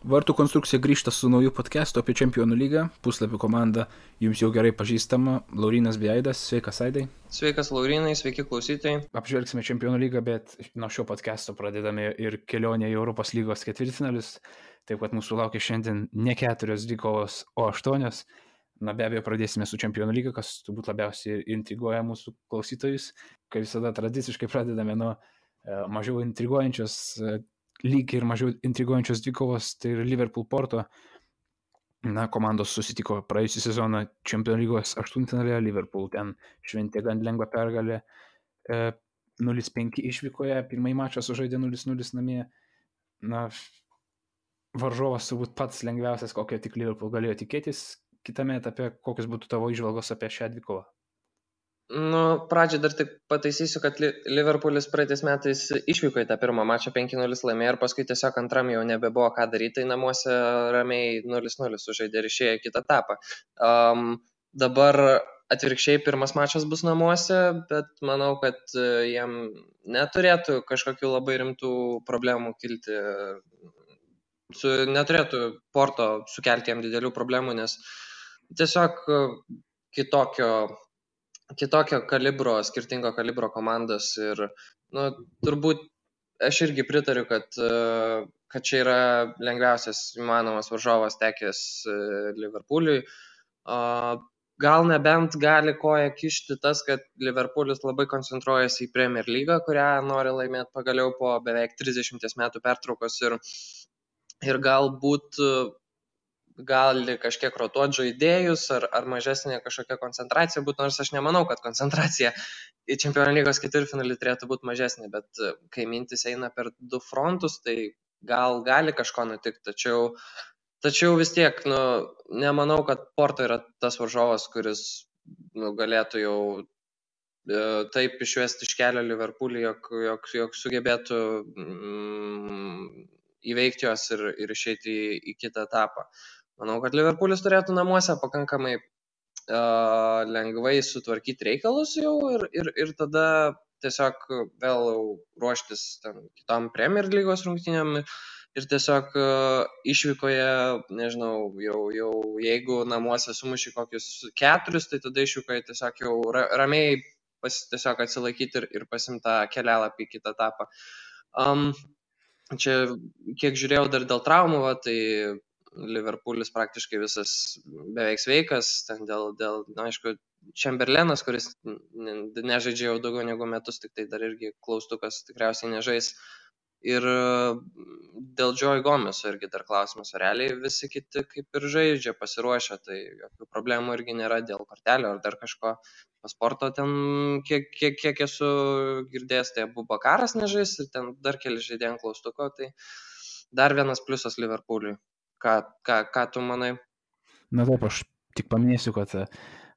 Vartų konstrukcija grįžta su nauju podcastu apie Čempionų lygą. Puslapių komanda jums jau gerai pažįstama. Laurinas Beidas, sveikas Aidai. Sveikas Laurinai, sveiki klausytojai. Apžvelgsime Čempionų lygą, bet nuo šio podcasto pradedame ir kelionę į Europos lygos ketvirtfinalius. Taip pat mūsų laukia šiandien ne 4 dvikovos, o 8. Na be abejo, pradėsime su Čempionų lyga, kas turbūt labiausiai intriguoja mūsų klausytojus. Kaip visada tradiciškai pradedame nuo mažiau intriguojančios lygiai ir mažiau intriguojančios dvikovos, tai ir Liverpool-Porto. Na, komandos susitiko praėjusią sezoną Čempionų lygos 8-finalėje, Liverpool ten šventė gan lengvą pergalę 0-5 išvykoje, pirmąjį mačą sužaidė 0-0 namie. Na, varžovas turbūt pats lengviausias, kokio tik Liverpool galėjo tikėtis. Kitame etape, kokios būtų tavo įžvalgos apie šią dvikovą? Pradžiai dar tik pataisysiu, kad Liverpoolis praeitais metais išvyko į tą pirmą mačą 5-0 laimėjo ir paskui tiesiog antram jau nebebuvo ką daryti, tai namuose ramiai 0-0 sužaidė ir išėjo į kitą etapą. Dabar atvirkščiai pirmas mačas bus namuose, bet manau, kad jam neturėtų kažkokių labai rimtų problemų kilti. Neturėtų Porto sukelti jam didelių problemų, nes tiesiog kitokio kalibro, skirtingo kalibro komandos ir turbūt aš irgi pritariu, kad čia yra lengviausias įmanomas varžovas tekęs Liverpooliui. Gal nebent gali koją kišti tas, kad Liverpoolis labai koncentruojasi į Premier lygą, kurią nori laimėti pagaliau po beveik 30 metų pertraukos ir galbūt gali kažkiek rotuoti žaidėjus ar mažesnė kažkokia koncentracija būtų, nors aš nemanau, kad koncentracija į Čempionų lygos ketvirtfinalį turėtų būti mažesnė, bet kai mintis eina per du frontus, tai gali kažko nutikti, tačiau vis tiek, nemanau, kad Porto yra tas varžovas, kuris galėtų jau taip išvesti iš kelio Liverpoolį, jog sugebėtų įveikti juos ir išeiti į kitą etapą. Manau, kad Liverpoolis turėtų namuose pakankamai lengvai sutvarkyti reikalus jau ir tada tiesiog vėl ruoštis kitom Premier lygos rungtynėm ir tiesiog išvykoje, nežinau, jau jeigu namuose sumuši kokius 4, tai tada išvykoje tiesiog jau ramiai tiesiog atsilaikyti ir pasimti kelialapį į kitą etapą. Čia, kiek žiūrėjau dar dėl traumų, tai Liverpoolis praktiškai visas beveik sveikas, ten dėl aišku, Chamberlainas, kuris nežaidžia jau daugiau negu metus, tik tai dar irgi klaustukas tikriausiai nežais. Ir dėl Joe Gomeso irgi dar klausimas, realiai visi kiti kaip ir žaidžia, pasiruošę, tai jokių problemų irgi nėra dėl kortelio ar dar kažko. Pasporto ten, kiek esu girdėjęs, tai Abubakaras nežais ir ten dar keli žaidėjai ant klaustuko, tai dar vienas pliusas Liverpooliui. Ką tu manai? Na taip, aš tik paminėsiu, kad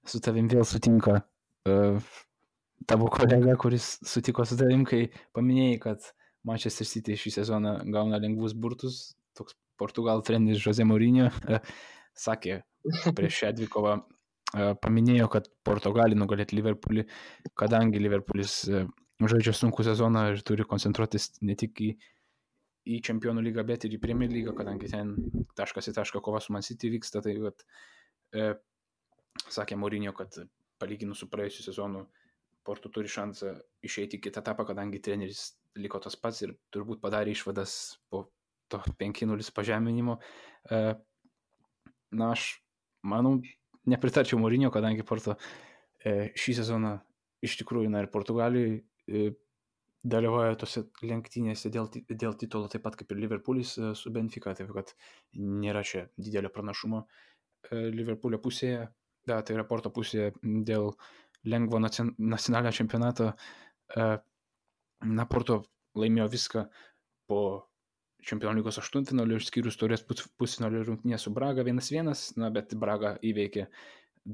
su tavim vėl sutinka tavo kolega, kuris sutiko su tavim, kai paminėjai, kad Manchester City šį sezoną gauna lengvus burtus. Toks Portugalų treneris Jose Mourinho sakė prieš šią dvikovą, paminėjo, kad Porto gali nugalėti Liverpoolį, kadangi Liverpoolis žaidžia sunkų sezoną ir turi koncentruotis ne tik į Čempionų lygą, bet ir į Premier lygą, kadangi ten taškas į tašką kova su Man City vyksta. Tai sakė Mourinho, kad palyginus su praėjusiu sezonu Porto turi šansą išeiti į kitą etapą, kadangi treneris liko tas pats ir turbūt padarė išvadas po to 5-0 pažeminimo. Na, aš manau, nepritarčiau Mourinho, kadangi Porto šį sezoną iš tikrųjų, ir Portugalijoje dalyvauja tose lenktynėse dėl titulo, taip pat kaip ir Liverpoolis su Benfica, taip kad nėra čia didelio pranašumo Liverpoolio pusėje, tai yra Porto pusėje dėl lengvo nacionalinio čempionato. Porto laimėjo viską po Čempionų lygos 8-finalio, išskyrus taurės pusfinalio rungtynę su Braga 1-1, bet Braga įveikė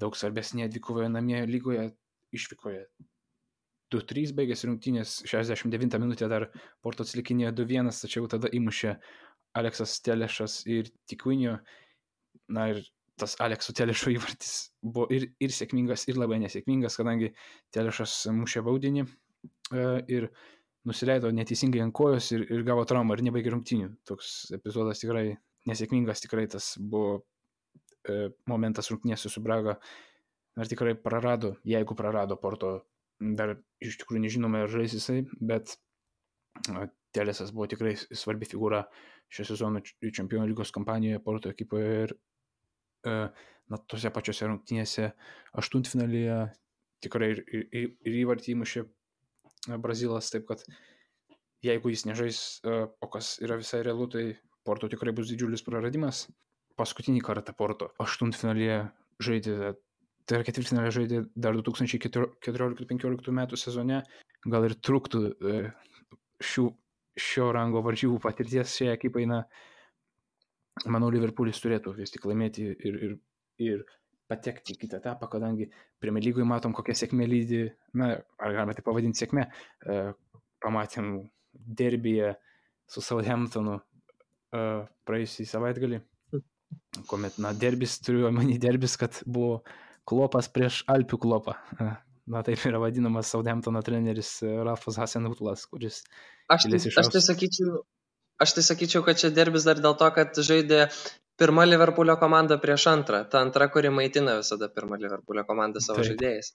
daug svarbesnėje dvikovoje namie lygoje, išvykoje 2-3 baigėsi rungtynės, 69 minutę dar Porto atsilikinėjo 2-1, tačiau tada įmušė Aleksas Telešas ir Tiquinho. Ir tas Alekso Telešo įvartis buvo ir sėkmingas, ir labai nesėkmingas, kadangi Telešas mušė baudinį ir nusileido neteisingai ant kojos ir gavo traumą ir nebaigė rungtynių. Toks epizodas tikrai nesėkmingas tikrai tas buvo momentas rungtynėse su Braga. Ar tikrai prarado, jeigu prarado Porto, dar iš tikrųjų nežinome, ar žais jisai, bet Telesas buvo tikrai svarbi figūra šio sezono Čempionų lygos kampanijoje Porto ekipoje ir tose pačiose rungtynėse aštuntfinalyje tikrai ir įvartį įmušė Brazilas, taip kad jeigu jis nežais, o kas yra visai realu, tai Porto tikrai bus didžiulis praradimas. Paskutinį kartą Porto aštuntfinalyje žaidė, tai yra ketvirtfinalį žaidė dar 2014-2015 metų sezone, gal ir truktų šio rango varžybų patirties šiai ekipai, manau, Liverpoolis turėtų vis tik laimėti ir patekti į kitą etapą, kadangi Premier lygoje matom, kokia sėkmė lydi, ar galime tai pavadinti sėkmė, pamatėm derbyje su Southamptonu praėjusį savaitgalį, kuomet, derbis, turiu omeny derbis, kad buvo Klopas prieš Alpių Klopą. Taip yra vadinamas Southamptono treneris Ralfas Hasenhutlas, kuris... Aš tai sakyčiau, kad čia derbis dar dėl to, kad žaidė pirma Liverpoolio komanda prieš antrą. Ta antra, kuri maitina visada pirmą Liverpoolio komandą savo žaidėjais.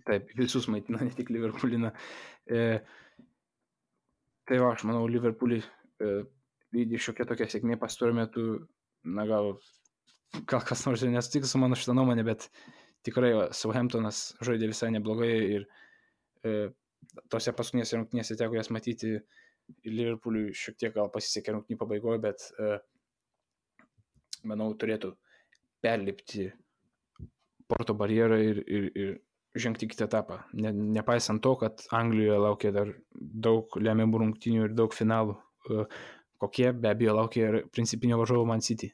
Taip, visus maitina, ne tik Liverpooliną. Tai aš manau, Liverpoolį lydi šiokia tokia sėkmė pastaruoju metu, gal kas nors ir nesutiks su mano šitą nuomonę, bet tikrai Southamptonas žaidė visai neblogai ir tose paskutinėse rungtynėse teko jas matyti, Liverpooliui šiek tiek gal pasisekė rungtynių pabaigoje, bet manau turėtų perlipti Porto barjerą ir žengti kitą etapą. Nepaisant to, kad Anglijoje laukia dar daug lemiamų rungtynių ir daug finalų, kokie be abejo laukia ir principinio varžovo Man City.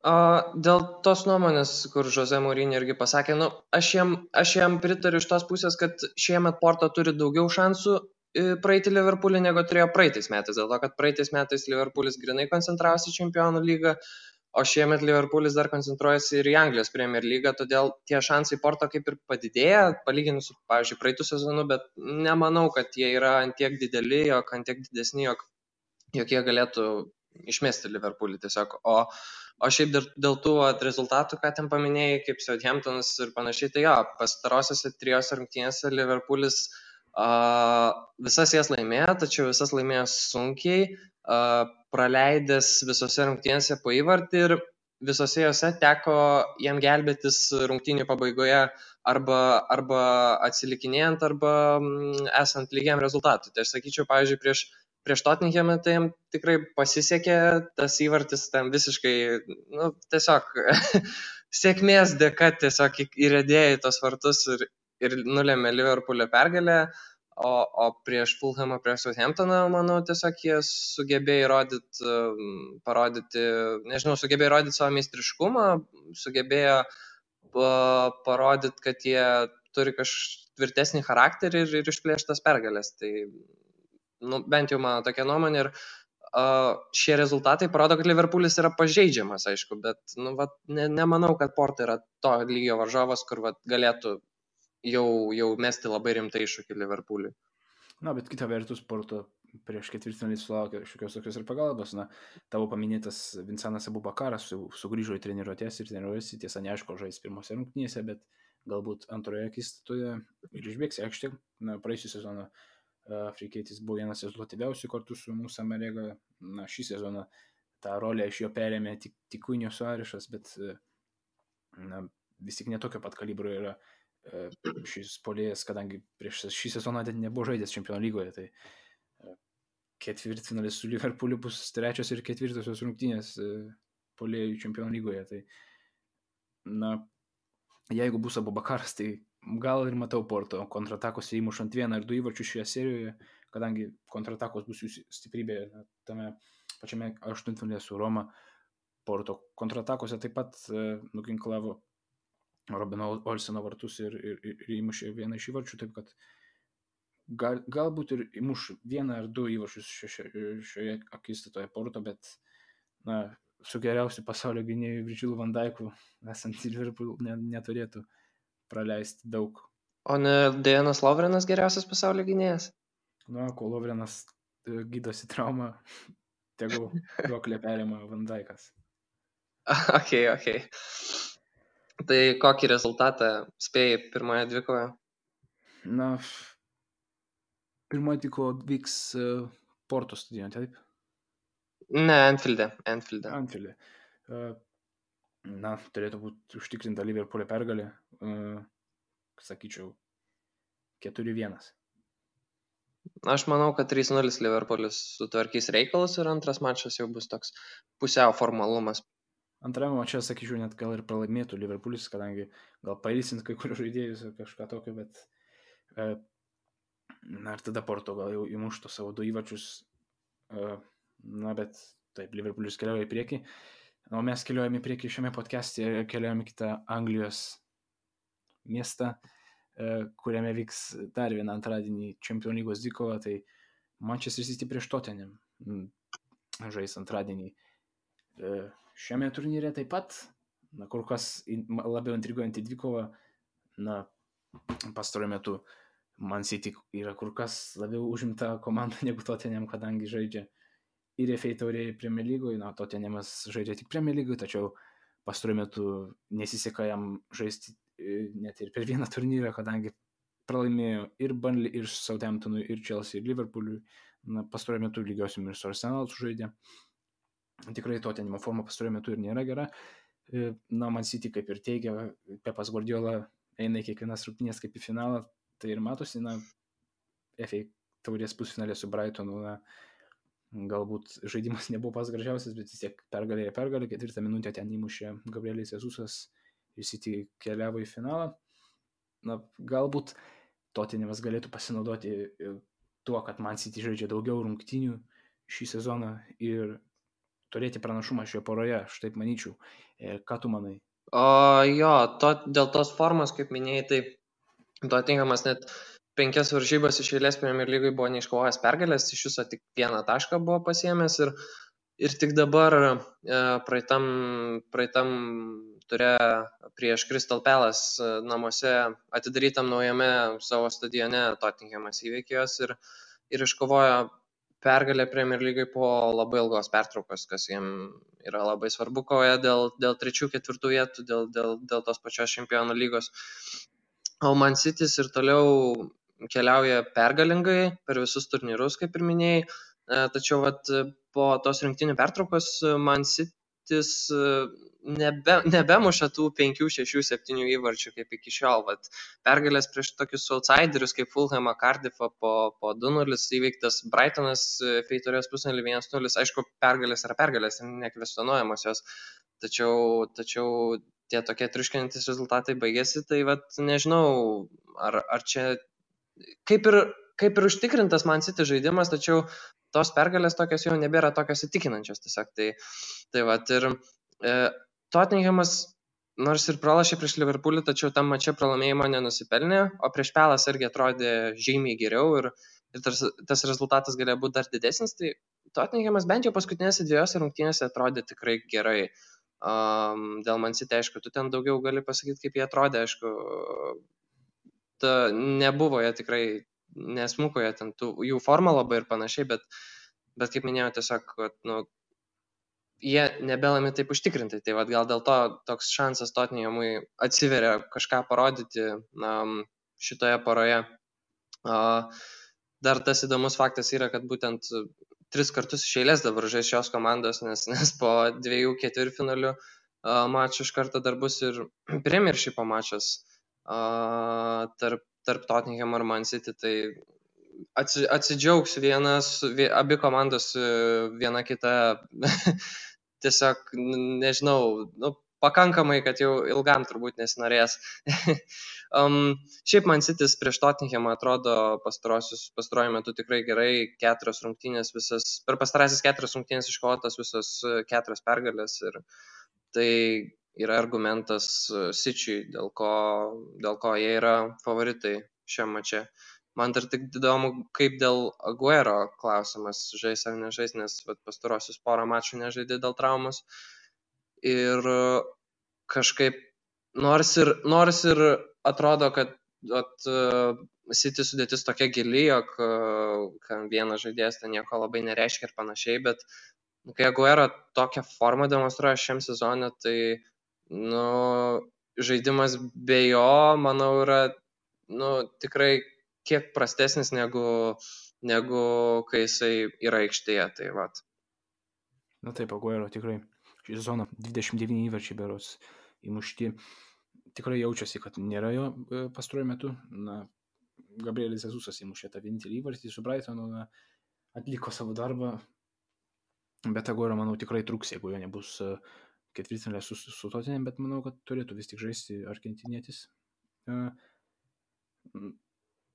Dėl tos nuomonės, kur Jose Mourinho irgi pasakė, aš jam pritariu iš tos pusės, kad šiemet Porto turi daugiau šansų praeiti Liverpoolį, negu turėjo praeitais metais, dėl to, kad praeitais metais Liverpoolis grinai koncentravosi Čempionų lygą, o šiemet Liverpoolis dar koncentruojasi ir į Anglijos Premier lygą, todėl tie šansai Porto kaip ir padidėja, palyginus su, pavyzdžiui, praeitų sezonu, bet nemanau, kad jie yra antiek dideli, ant tiek didesni, jog jie galėtų išmesti Liverpoolį tiesiog, o šiaip dėl tų rezultatų, ką ten paminėjai, kaip Southamptonas ir panašiai, tai pastarosiose 3 rungtynėse Liverpoolis visas jas laimėjo, tačiau visas laimėjo sunkiai, praleidęs visose rungtynėse po įvartį ir visose jose teko jam gelbėtis rungtynių pabaigoje arba atsilikinėjant, arba esant lygiam rezultatui. Tai aš sakyčiau, pavyzdžiui, prieš Tottenhamą tai jam tikrai pasisekė, tas įvartis tam visiškai, tiesiog sėkmės dėka tiesiog įrėdėjo į tos vartus ir nulėmė Liverpoolio pergalę, o prieš Fulhamą, prieš Southamptoną, manau, tiesiog jie sugebėjo sugebėjo įrodyti savo meistriškumą, sugebėjo parodyti, kad jie turi tvirtesnį charakterį ir išplėštas pergalės. Tai bent jau mano tokia nuomonė ir šie rezultatai parodo, kad Liverpoolis yra pažeidžiamas, aišku, bet nemanau, kad Porto yra to lygio varžovas, kur galėtų jau mesti labai rimtai iššūkį Liverpooliui. Bet kita vertus, Porto prieš ketvirtfinalį sulaukė šiokios tokios ir pagalbos. Tavo paminėtas Vincentas Abubakaras sugrįžo į treniruotės ir treniruojasi, tiesa neaišku, žais pirmose rungtynėse, bet galbūt antroje akistatoje ir išbėgs į aikštę. Praėjusią sezoną afrikietis buvo vienas rezultatyviausių kartu su Musa Marega. Šį sezoną tą rolę iš jo perėmė tik Cunha Suarešas, bet vis tik netokio pat kalibro yra šis puolėjas, kadangi prieš šį sezoną nebuvo žaidęs Čempionų lygoje, tai ketvirtfinalis su Liverpooliu bus 3. ir 4. rungtynės puolėjų Čempionų lygoje. Tai jeigu bus Abubakaras, tai gal ir matau Porto kontratakose įmušant 1 ar 2 įvarčius šioje serijoje, kadangi kontratakos bus jų stiprybė tame pačiame aštuntfinalyje su Roma. Porto kontratakose taip pat nuginklavo Robino Olseno vartus ir įmušė 1 iš įvarčių, taip kad galbūt ir įmuš 1 ar 2 įvarčius šioje akistatoje Porto, bet su geriausiu pasaulio gynėju Virgilu van Dijku esant Liverpool neturėtų praleisti daug. O ne Dejanas Lovrenas geriausias pasaulio gynėjas? Kol Lovrenas gydosi traumą, Tegu duoklę perima Van Dijkas. Okay. Tai kokį rezultatą spėjai pirmoje dvikoje? Na, pirmoji dvikova vyks Porto stadione, taip? Ne, Anfield'e. Anfield'e. Na, turėtų būti užtikrinta Liverpool'e pergalė. Sakyčiau, 4-1. Aš manau, kad 3-0 Liverpoolis sutvarkys reikalus ir antras mačas jau bus toks pusiau formalumas. Antrame mače, sakyčiau, net gal ir pralaimėtų Liverpoolis, kadangi gal pailsint kai kurių žaidėjus ar kažką tokio, bet na ir tada Porto gal jau įmuštų savo 2 įvarčius. Na, bet taip, Liverpoolis keliauja į priekį. O mes keliaujame į priekį šiame podcast'e ir keliaujame į kitą Anglijos miestą, kuriame vyks dar vieną antradienį Čempionų lygos dvikova, tai Manchester City prieš Tottenham žais antradienį. Šiame turnyre taip pat, na, kur kas labiau intriguojantį dvikovą, na, pastaruoju metu Man City yra kur kas labiau užimta komanda negu Tottenham, kadangi žaidžia ir FA taurėje Premier lygoje, na, Tottenhamas žaidžia tik Premier lygoje, tačiau pastaruoju metu nesiseka jam žaisti net ir per vieną turnyrą, kadangi pralaimėjo ir Burnley, ir Southamptonui, ir Chelsea, ir Liverpool'ui. Na, pastaruoju metu lygiosim ir su Arsenal sužaidė. Tikrai Tottenhamo forma pastaruoju metu ir nėra gera. Na, Man City, kaip ir teigia Pepas Guardiola, eina į kiekvienas rungtynes kaip į finalą. Tai ir matosi, na, FA taurės pusfinalė su Brightonu, na, galbūt žaidimas nebuvo pas gražiausias, bet vis tiek pergalė, 4 minutę ten įmušė Gabrielis Jesusas ir City keliavo į finalą. Na, galbūt Tottenhamas galėtų pasinaudoti tuo, kad Man City žaidžia daugiau rungtynių šį sezoną ir turėti pranašumą šioje poroje, aš taip manyčiau. Ką tu manai? Dėl tos formos, kaip minėjai, tai Tottenhamas net 5 varžybas iš eilės Premier lygoje buvo neiškovojęs pergalės, iš viso tik 1 tašką buvo pasiėmęs ir tik dabar praeitam ture prieš Crystal Palace namuose atidarytam naujame savo stadione Tottenhamas įveikė juos ir iškovojo pergalę Premier lygoje po labai ilgos pertraukos, kas jiem yra labai svarbu kovoje dėl 3-4 vietų, dėl tos pačios Čempionų lygos. O Man City's ir toliau keliauja pergalingai per visus turnyrus, kaip ir minėjai, tačiau po tos rinktinių pertraukos Man City's nebemuša tų 5, 6, 7 įvarčių kaip iki šiol. Pergalės prieš tokius outsiderius kaip Fulhamą, Cardiffą po 2-0 įveiktas Brightonas FA taurės pusfinalį 1-0. Aišku, pergalės yra pergalės, nekvestionuojamos jos, tačiau tie tokie triuškinantys rezultatai baigėsi, tai nežinau, ar čia kaip ir užtikrintas Man City žaidimas, tačiau tos pergalės tokios jau nebėra tokios įtikinančios tiesiog. Ir Tottenhamas nors ir pralašė prieš Liverpoolį, tačiau tam mače pralaimėjimo nenusipelnė, o prieš Palace irgi atrodė žymiai geriau ir tas rezultatas galėjo būti dar didesnis, tai Tottenhamas bent jau paskutinėse 2 rungtynėse atrodė tikrai gerai. Dėl Man City, aišku, tu ten daugiau gali pasakyti, kaip jie atrodė, aišku, nebuvo jie tikrai, nesmuko jie ten, jų forma labai ir panašiai, bet kaip minėjau, tiesiog, jie nebelami taip užtikrintai, tai gal dėl to toks šansas Tottenhamui atsiveria kažką parodyti šitoje poroje. Dar tas įdomus faktas yra, kad būtent 3 kartus iš eilės dabar žais šios komandos, nes po 2 ketvirtfinalių mačų iš karto dar bus ir Premiershipo mačas tarp Tottenham ir Man City, tai atsidžiaugs abi komandos viena kita tiesiog, nežinau, pakankamai, kad jau ilgam turbūt nesinorės. Šiaip Man City's prieš Tottenhamą atrodo pastaruoju metu tikrai gerai, 4 rungtynės visas, per pastarasis 4 rungtynės iškovotas visas 4 pergalės ir tai yra argumentas City'ui, dėl ko jie yra favoritai šiam mače. Man dar tik įdomu, kaip dėl Aguero klausimas, žais ar nežais, nes pastarosius porą mačų nežaidė dėl traumos. Ir kažkaip, nors ir atrodo, kad City sudėtis tokia gili, jog vienas žaidėjas ten nieko labai nereiškia ir panašiai, bet kai Aguero tokią formą demonstruoja šiam sezonui, tai žaidimas be jo, manau, yra tikrai kiek prastesnis negu kai jisai yra aikštėje. Tai vat. Na taip, Aguero tikrai šį sezoną 29 įvarčiai berods įmušti. Tikrai jaučiasi, kad nėra jo pastaruoju metu. Gabrielis Jesusas įmušė tą vienintelį įvartį su Brightonu, atliko savo darbą, bet Aguero, manau, tikrai truks, jeigu jo nebus ketvirtfinalė su Tottenham, bet manau, kad turėtų vis tik žaisti argentinietis.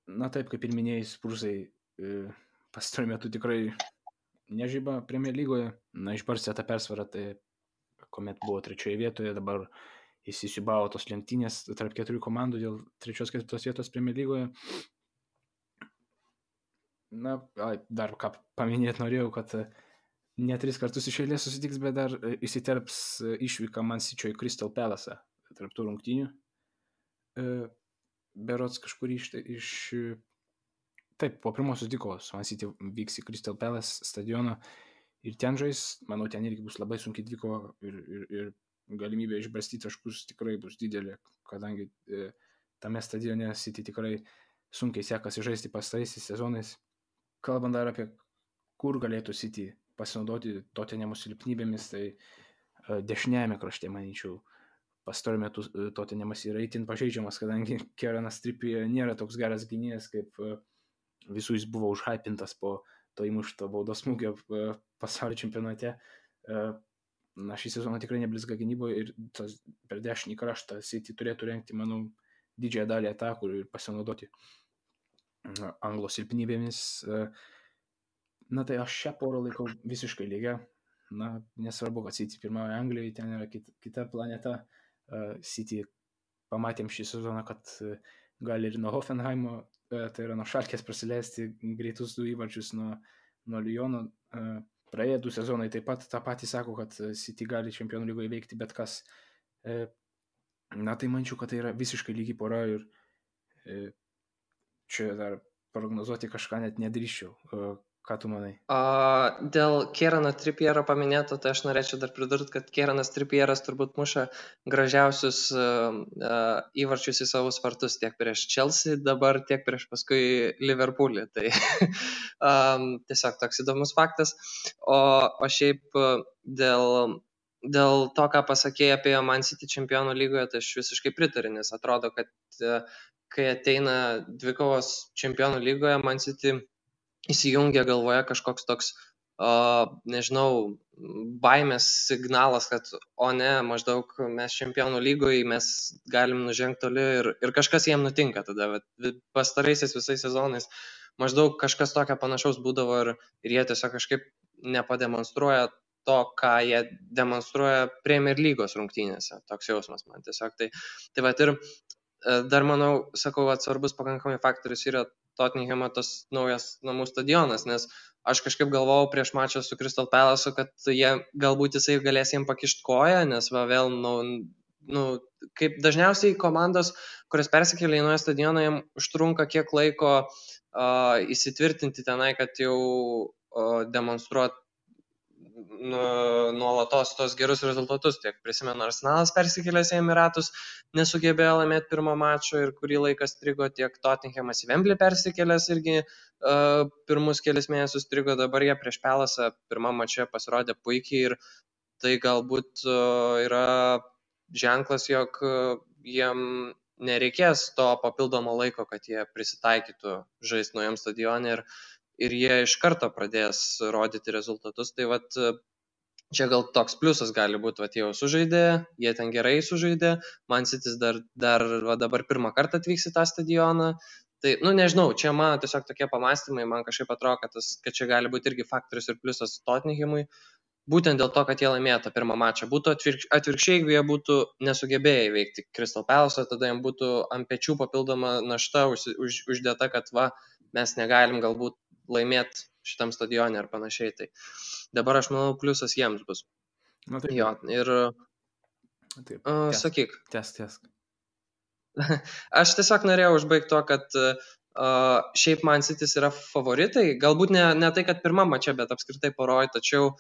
Na taip, kaip ir minėjai, Spursai pastaruoju metu tikrai nežyba Premier lygoje. Išbarstė tą persvarą, tai kuomet buvo 3 vietoje, dabar įsisiubavo tos lenktynės tarp 4 komandų dėl 3-4 vietos Premier lygoje. Dar ką paminėti norėjau, kad ne 3 kartus iš eilės susitiks, bet dar įsiterps išvyka Man City'o į Crystal Palace tarp tų rungtynių. Berods kažkur Taip, po pirmosios dvikovos Man City vyks į Crystal Palace stadioną ir ten žais. Manau, ten irgi bus labai sunkiai dvikova ir galimybė išbarstyti taškus tikrai bus didelė, kadangi tame stadione City tikrai sunkiai sekasi žaisti pastaraisiais sezonais. Kalbant dar apie kur galėtų City pasinaudoti Tottenhamo silpnybėmis, tai dešiniajame krašte, manyčiau, pastaruoju metu Tottenhamas yra itin pažeidžiamas, kadangi Kieranas Trippier nėra toks geras gynėjas, kaip visų jis buvo užhypintas po to įmušto baudos smūgio pasaulio čempionate. Šį sezoną tikrai neblizga gynyboje ir per dešinį kraštą City turėtų rengti, manau, didžiąją dalį atakų ir pasinaudoti Anglo silpnybėmis. Tai aš šią porą laikau visiškai lygia. Nesvarbu, kad City pirmauja Anglijoje, ten yra kita planeta. City pamatėm šį sezoną, kad gali ir nuo Hoffenheimo, tai yra nuo Schalkės prasileisti greitus 2 įvarčius nuo Lyono. Praėję 2 sezonai taip pat tą patį sako, kad City gali Čempionų lygoje veikti bet kas. Tai mančiau, kad tai yra visiškai lygi pora ir čia dar prognozuoti kažką net nedrįščiau. Ką tu manai? Dėl Kierano Trippiero paminėto, tai aš norėčiau dar pridurti, kad Kieranas Trippieras turbūt muša gražiausius įvarčius į savus vartus tiek prieš Chelsea dabar, tiek prieš paskui Liverpoolį. Tai tiesiog toks įdomus faktas. O šiaip dėl to, ką pasakėjai apie Man City Čempionų lygoje, tai aš visiškai pritariu, nes atrodo, kad kai ateina dvikovos Čempionų lygoje, Man City įsijungia galvoje kažkoks toks, nežinau, baimės signalas, kad maždaug mes Čempionų lygoje, mes galim nužengti toli ir kažkas jiem nutinka tada. Pastaraisiais visais sezonais maždaug kažkas tokio panašaus būdavo ir jie tiesiog kažkaip nepademonstruoja to, ką jie demonstruoja Premier lygos rungtynėse. Toks jausmas man tiesiog. Tai ir dar manau, sakau, svarbus pakankamai faktorius yra Tottenhamo tas naujas namų stadionas, nes aš kažkaip galvojau prieš mačą su Crystal Palace, kad galbūt jisai galės jiem pakišti koją, nes vėl, kaip dažniausiai komandos, kurios persikėlė į naują stadioną, jiem užtrunka kiek laiko įsitvirtinti tenai, kad jau demonstruot nuolatos tos gerus rezultatus. Tiek prisimenu, Arsenalas persikėlęs į Emiratus nesugebėjo laimėti pirmo mačo ir kurį laiką strigo, tiek Tottenhamas į Wembley persikėlęs irgi pirmus kelis mėnesius strigo, dabar jie prieš Pelasą pirmam mače pasirodė puikiai ir tai galbūt yra ženklas, jog jiem nereikės to papildomo laiko, kad jie prisitaikytų žaisti naujam stadione ir jie iš karto pradės rodyti rezultatus. Tai čia gal toks pliusas gali būti, jie jau sužaidė, jie ten gerai sužaidė, Man City dar dabar pirmą kartą atvyks į tą stadioną. Tai, nežinau, čia man tiesiog tokie pamastymai, man kažkaip atrodo, kad čia gali būti irgi faktorius ir pliusas Tottenhamui, būtent dėl to, kad jie laimėjo tą pirmą mačą. Būtų atvirkščiai, jeigu jie būtų nesugebėję įveikti Crystal Palace, tada jiems būtų ant pečių papildoma našta uždėta, kad mes negalim galbūt laimėti šitam stadione ar panašiai. Tai dabar aš manau, pliusas jiems bus. Taip. Jo, ir taip, sakyk. Tęsk. Aš tiesiog norėjau užbaigti to, kad šiaip Man City yra favoritai. Galbūt ne tai, kad pirmam mače, bet apskritai poroj, tačiau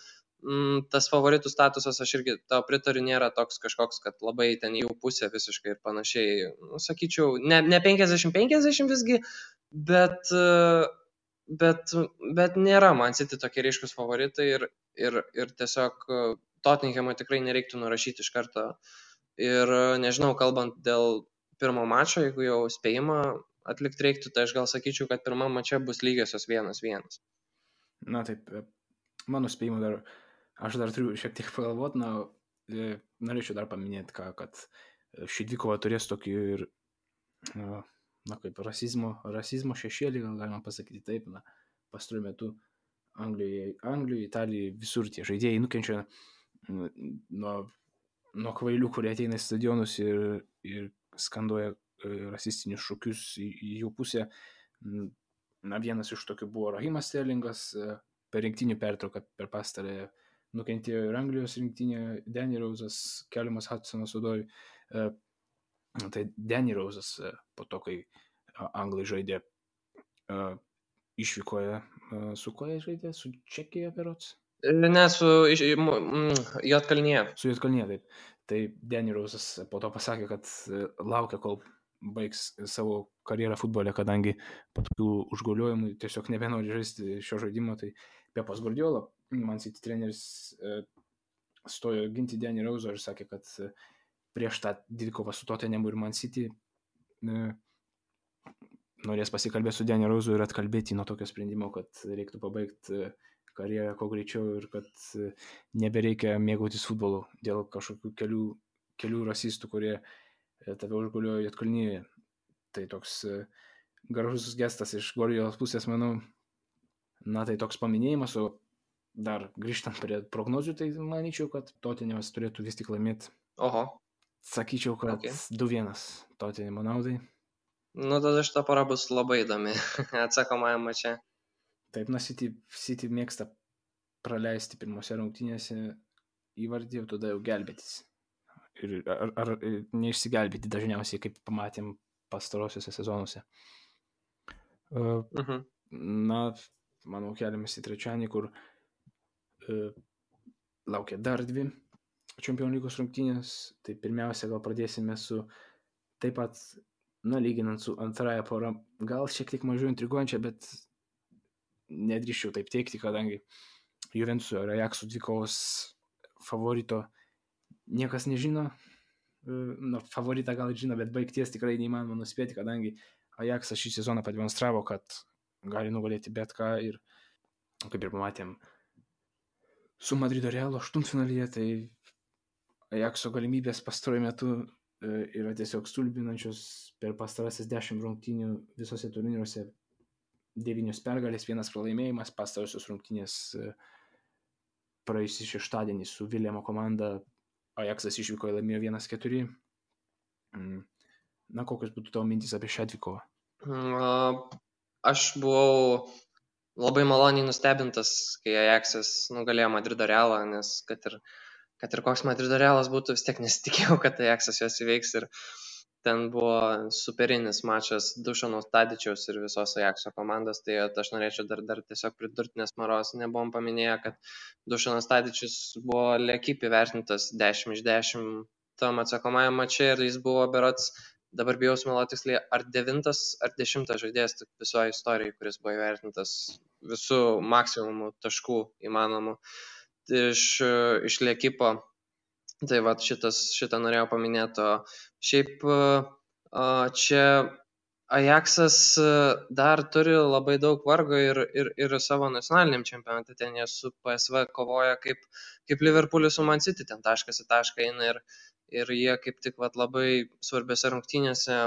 tas favoritų statusas, aš irgi tau pritariu, nėra toks kažkoks, kad labai ten jų pusė visiškai ir panašiai. Nu, sakyčiau, ne 50-50 visgi, bet nėra Man City tokie ryškus favoritai ir tiesiog Tottenhamui tikrai nereiktų nurašyti iš karto. Ir nežinau, kalbant dėl pirmo mačo, jeigu jau spėjimą atlikti reiktų, tai aš gal sakyčiau, kad pirmam mače bus lygiosios 1-1. Na taip, mano spėjimu aš dar turiu šiek tiek pagalvoti, norėčiau dar paminėti, kad ši dvikova turės tokį ir, kaip rasizmo šešėlį, gal galima pasakyti taip, pastaruoju metu Anglijoje, Italijoje, visur tie žaidėjai nukenčia nuo kvailių, kurie ateina į stadionus ir skanduoja rasistinius šūkius į jų pusę. Vienas iš tokių buvo Rahimas Sterlingas, per rinktinių pertrauką per pastarąją nukentėjo ir Anglijos rinktinė, Danny Rose'as, Keliamas Hudsonas Odoj. Tai Danny Rose'as po to, kai Anglai žaidė, išvykoje, su ko jie žaidė? Su Čekija berods? Ne, su Juodkalnija. Su Juodkalnija, taip. Tai Danny Rose'as po to pasakė, kad laukia, kol baigs savo karjerą futbole, kadangi po tokių užgauliojimų tiesiog nebenori žaisti šio žaidimo. Tai Pepas Guardiola, Man City treneris, stojo ginti Danny Rose'ą ir sakė, kad prieš tą dvikovą su Tottenhamu ir Man City norės pasikalbėti su Danny Rose'u ir atkalbėti nuo tokio sprendimo, kad reiktų pabaigti karjerą kuo greičiau ir kad nebereikia mėgautis futbolu dėl kažkokių kelių rasistų, kurie tave užguliojo Juodkalnijoje. Tai toks gražus gestas iš Guardiolos pusės, manau. Tai toks paminėjimas, o dar grįžtant prie prognozių, tai manyčiau, kad Tottenhamas turėtų vis tik laimėti. Oho. Sakyčiau, kad 2-1 Tottenhamo naudai. Tada šita para bus labai įdomi atsakomajam mače. Taip, City mėgsta praleisti pirmose rungtynėse įvartį, o tada jau gelbėtis. Ar neišsigelbėti dažniausiai, kaip pamatėm pastarosiuose sezonuose. Manau, keliamės į trečiąjį, kur laukia dar 2 Čempionų lygos rungtynės. Tai pirmiausia, gal pradėsime su taip pat, lyginant su antrąją porą, gal šiek tiek mažiau intriguojančią, bet nedrįščiau taip teikti, kadangi Juventuso ir Ajaxo dvikovos favorito niekas nežino. Favoritą gal žino, bet baigties tikrai neįmanoma nuspėti, kadangi Ajaxas šį sezoną pademonstravo, kad gali nugalėti bet ką ir, kaip ir pamatėm, su Madrido Realo aštuntfinalyje, tai Ajaxo galimybės pastaruoju metu yra tiesiog stulbinančios. Per pastarasis 10 rungtynių visose turnyruose 9 pergalės, 1 pralaimėjimas. Pastarusios rungtynės praėjusį šeštadienį su Viljamo komanda Ajaxas išvykoje laimėjo 1-4. Kokios būtų tavo mintys apie šią dvikovą? Aš buvau labai maloniai nustebintas, kai Ajaxas nugalėjo Madrido Realą, nes kad ir koks Madrido Realas būtų, vis tiek nesitikėjau, kad Ajaxas juos įveiks, ir ten buvo superinis mačas Dušano Tadičiaus ir visos Ajaxo komandos. Tai aš norėčiau dar tiesiog pridurti, nes Maros nebuvom paminėję, kad Dušanas Tadičius buvo L'Equipe įvertintas 10 iš 10 tam atsakomajam mače, ir jis buvo berods, dabar bijau sumeluoti tiksliai, ar 9 ar 10 žaidėjas visoje istorijoje, kuris buvo įvertintas visų maksimumų taškų įmanomų iš L'Equipe. Tai va, šitą norėjau paminėti. Šiaip čia Ajaxas dar turi labai daug vargo ir savo nacionaliniam čempionate. Ten jie su PSV kovoja kaip Liverpoolis su Man City, ten taškas į tašką eina, ir jie kaip tik labai svarbiose rungtynėse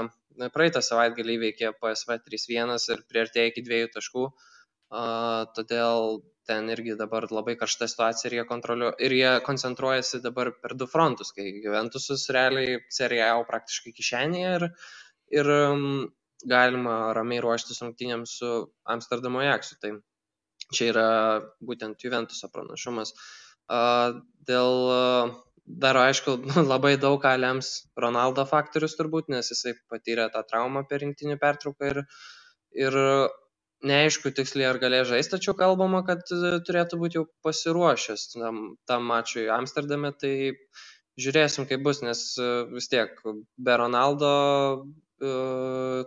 praeitą savaitgalį įveikė PSV 3-1 ir priartėjo iki 2 taškų. Todėl ten irgi dabar labai karšta situacija, ir jie koncentruojasi dabar per 2 frontus, kai Juventusas realiai Serie A praktiškai kišenėje, ir galima ramiai ruoštis rungtynėms su Amsterdamo Ajaxu. Tai čia yra būtent Juventuso pranašumas. Dar aišku, labai daug ką lems Ronaldo faktorius turbūt, nes jisai patyrė tą traumą per rinktinių pertrauką, ir neaišku tiksliai ar galės žaisti, tačiau kalbama, kad turėtų būti jau pasiruošęs tam mačui Amsterdame, tai žiūrėsim, kaip bus, nes vis tiek be Ronaldo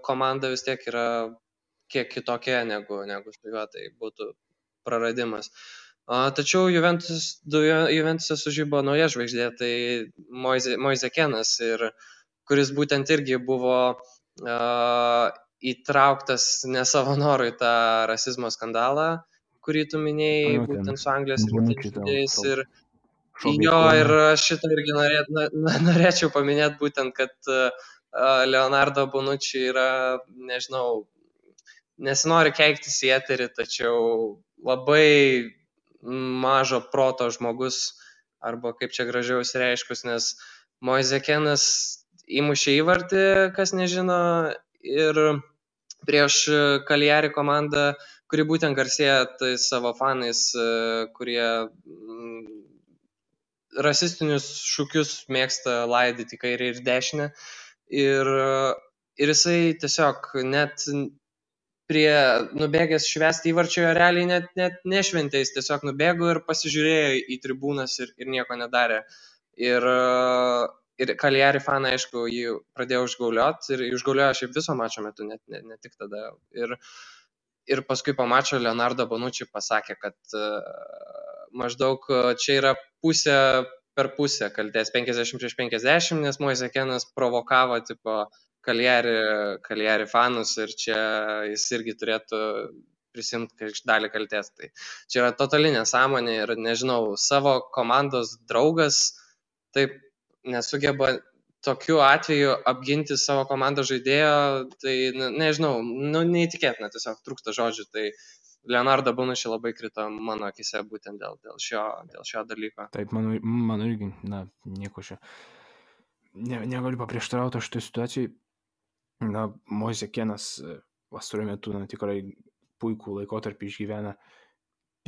komanda vis tiek yra kiek kitokia negu su juo, tai būtų praradimas. Tačiau Juventus'e sužybo nauja žvaigždė, tai Moise Keanas, kuris būtent irgi buvo įtrauktas ne savo norų į tą rasizmo skandalą, kurį tu minėjai, būtent su Anglijos rinktinės žaidėjais. Ir aš šitą irgi norėčiau paminėti būtent, kad Leonardo Bonucci yra, nežinau, nesinori keiktis į eterį, tačiau labai mažo proto žmogus, arba kaip čia gražiau išsireiškus, nes Moise Keanas įmušė įvartį, kas nežino, ir prieš Cagliari komandą, kuri būtent garsėja tai savo fanais, kurie rasistinius šūkius mėgsta laidyti kairę ir dešinę. Ir jisai tiesiog net nubėgęs švęsti įvarčio realiai net nešventė, jis tiesiog nubėgo ir pasižiūrėjo į tribūnas ir nieko nedarė. Ir Cagliari fanai, aišku, jį pradėjo užgaulioti ir užgauliojo šiaip viso mačo metu, ne tik tada. Ir paskui po mačo Leonardo Bonucci pasakė, kad maždaug čia yra pusė per pusę kaltės, 50-50, nes Moise Keanas provokavo tipo Cagliari fanus ir čia jis irgi turėtų prisimti dalį kaltės. Tai čia yra totali nesąmonė ir nežinau, savo komandos draugas taip nesugeba tokiu atveju apginti savo komandos žaidėjo, tai nežinau, neįtikėtina, tiesiog trūksta žodžių. Tai Leonardo Bonucci labai krito mano akise būtent dėl šio dalyko. Taip, mano irgi, nieko čia. Negaliu paprieštarauti šitoj situacijai. Moise Keanas pastaruoju metu tikrai puikų laikotarpį išgyvena.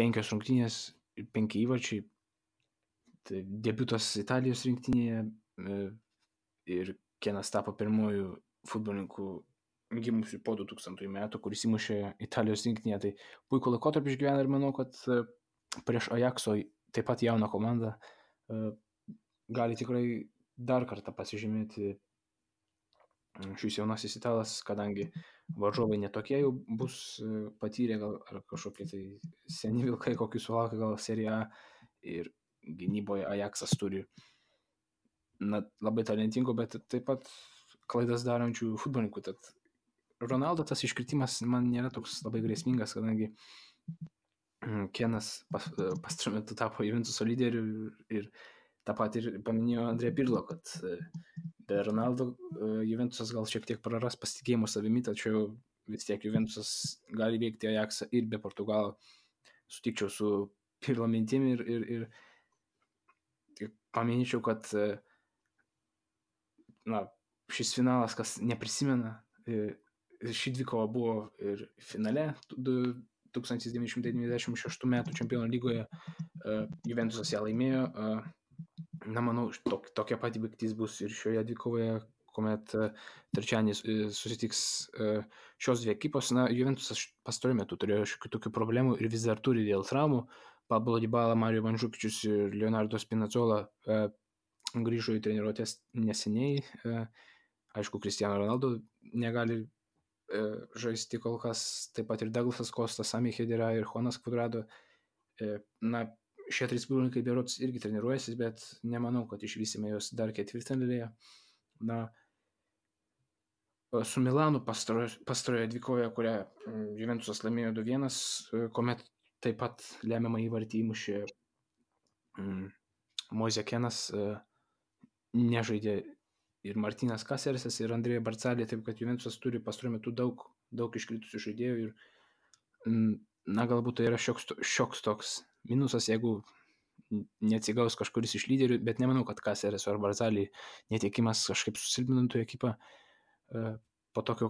5 rungtynės ir 5 įvarčiai. Tai debiutas Italijos rinktinėje ir Keanas tapo pirmojų futbolininkų gimusių po 2000 metų, kuris įmušė Italijos rinktinėje. Tai puikų laikotarpį išgyvena ir manau, kad prieš Ajaxo taip pat jauną komandą gali tikrai dar kartą pasižymėti šis jaunasis italas, kadangi varžovai netokie jau bus patyrę, gal ar kažkokie tai seni vilkai, kokius sulaukia gal Serie A, ir gynyboje Ajaxas turi labai talentingų, bet taip pat klaidas darančių futbolininkų. Tad Ronaldo tas iškritimas man nėra toks labai grėsmingas, kadangi Keanas pastaruoju metu tapo Juventuso lyderiu ir tą pat ir paminėjo Andrė Pirlo, kad be Ronaldo Juventusas gal šiek tiek praras pasitikėjimo savimi, tačiau vis tiek Juventusas gali veikti Ajaxą ir be Portugalo. Sutikčiau su Pirlo mintimi ir paminėčiau, kad šis finalas, kas neprisimena, ši dvikova buvo ir finale 1996 metų Čempionų lygoje. Juventusas ją laimėjo. Manau, tokia pati baigtis bus ir šioje dvikovoje, kuomet trečiadienį susitiks šios dvi ekipos. Juventusas pastaruoju metu turėjo šiokių tokių problemų ir vis dar turi dėl traumų. Pablo Dybala, Mario Mandžukičius ir Leonardo Spinazzola grįžo į treniruotės neseniai. Aišku, Cristiano Ronaldo negali žaisti kol kas, taip pat ir Douglasas Kostas, Sami Khedira ir Juanas Cuadrado. Šie 3 futbolininkai berods irgi treniruojasi, bet nemanau, kad išvysime juos dar ketvirtfinalyje. Su Milanu pastaroje dvikovoje, kurią Juventusas laimėjo 2-1, kuomet taip pat lemiamą įvartį įmušė Moise Keanas, nežaidė ir Martinas Caceresas, ir Andrea Barcali, taip kad Juventusas turi pastaruoju metu daug iškritusių žaidėjų ir galbūt tai yra šioks toks minusas, jeigu neatsigaus kažkuris iš lyderių, bet nemanau, kad Cacereso ar Barcali netekimas kažkaip susilpnintų ekipą. Po tokio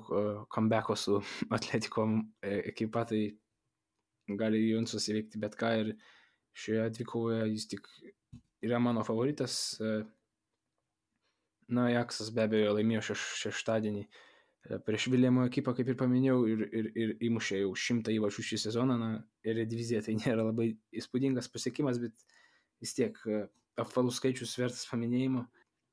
comebacko su Atletico ekipa, tai gali Juventusas įveikti bet ką ir šioje dvikovoje jis tik yra mano favoritas. Ajaxas be abejo laimėjo šeštadienį prieš Viljamo ekipą, kaip ir paminėjau, ir įmušė jau 100 įvarčių šį sezoną. Na, ir divizija tai nėra labai įspūdingas pasiekimas, bet vis tiek apvalus skaičius vertas paminėjimo.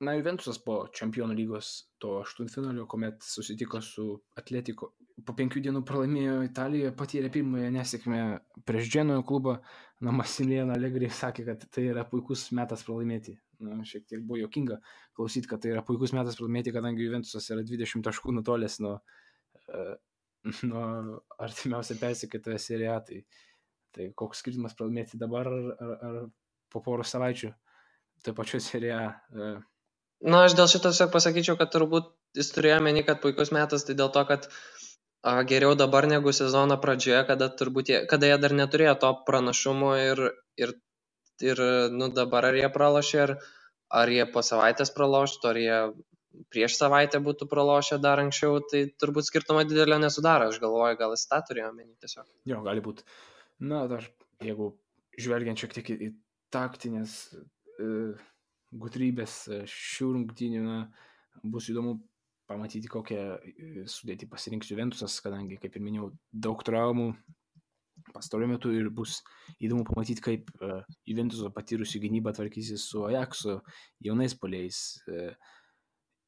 Na, Juventusas po Čempionų lygos to aštuntfinalio, kuomet susitiko su Atletico, po 5 dienų pralaimėjo Italijoje, patyrė pirmąją nesėkmę prieš Dženojo klubą. Na, Massimiliano Allegri sakė, kad tai yra puikus metas pralaimėti. Na, šiek tiek buvo jokinga klausyti, kad tai yra puikus metas pralaimėti, kadangi Juventusas yra 20 taškų nutolęs nuo artimiausia persekėtoje Serie A. Tai koks skirtumas pralaimėti dabar ar po poros savaičių taip pačiu Serie A. Na, aš dėl šito tiesiog pasakyčiau, kad turbūt jis turėjo meni, kad puikus metas, tai dėl to, kad geriau dabar negu sezono pradžioje, kada jie dar neturėjo to pranašumo ir dabar ar jie pralošė, ar jie po savaitės praloštų, ar jie prieš savaitę būtų pralošę dar anksčiau, tai turbūt skirtumo didelio nesudaro. Aš galvoju, gal jis tą turėjo meni tiesiog. Jo, gali būti. Na, dar jeigu žvelgiant šiek tiek į taktinės gudrybės šių rungtynių, bus įdomu pamatyti, kokią sudėtį pasirinks Juventusas, kadangi, kaip ir minėjau, daug traumų pastaruoju metu ir bus įdomu pamatyti, kaip Juventuso patyrusių gynybą tvarkysis su Ajaxu, jaunais puolėjais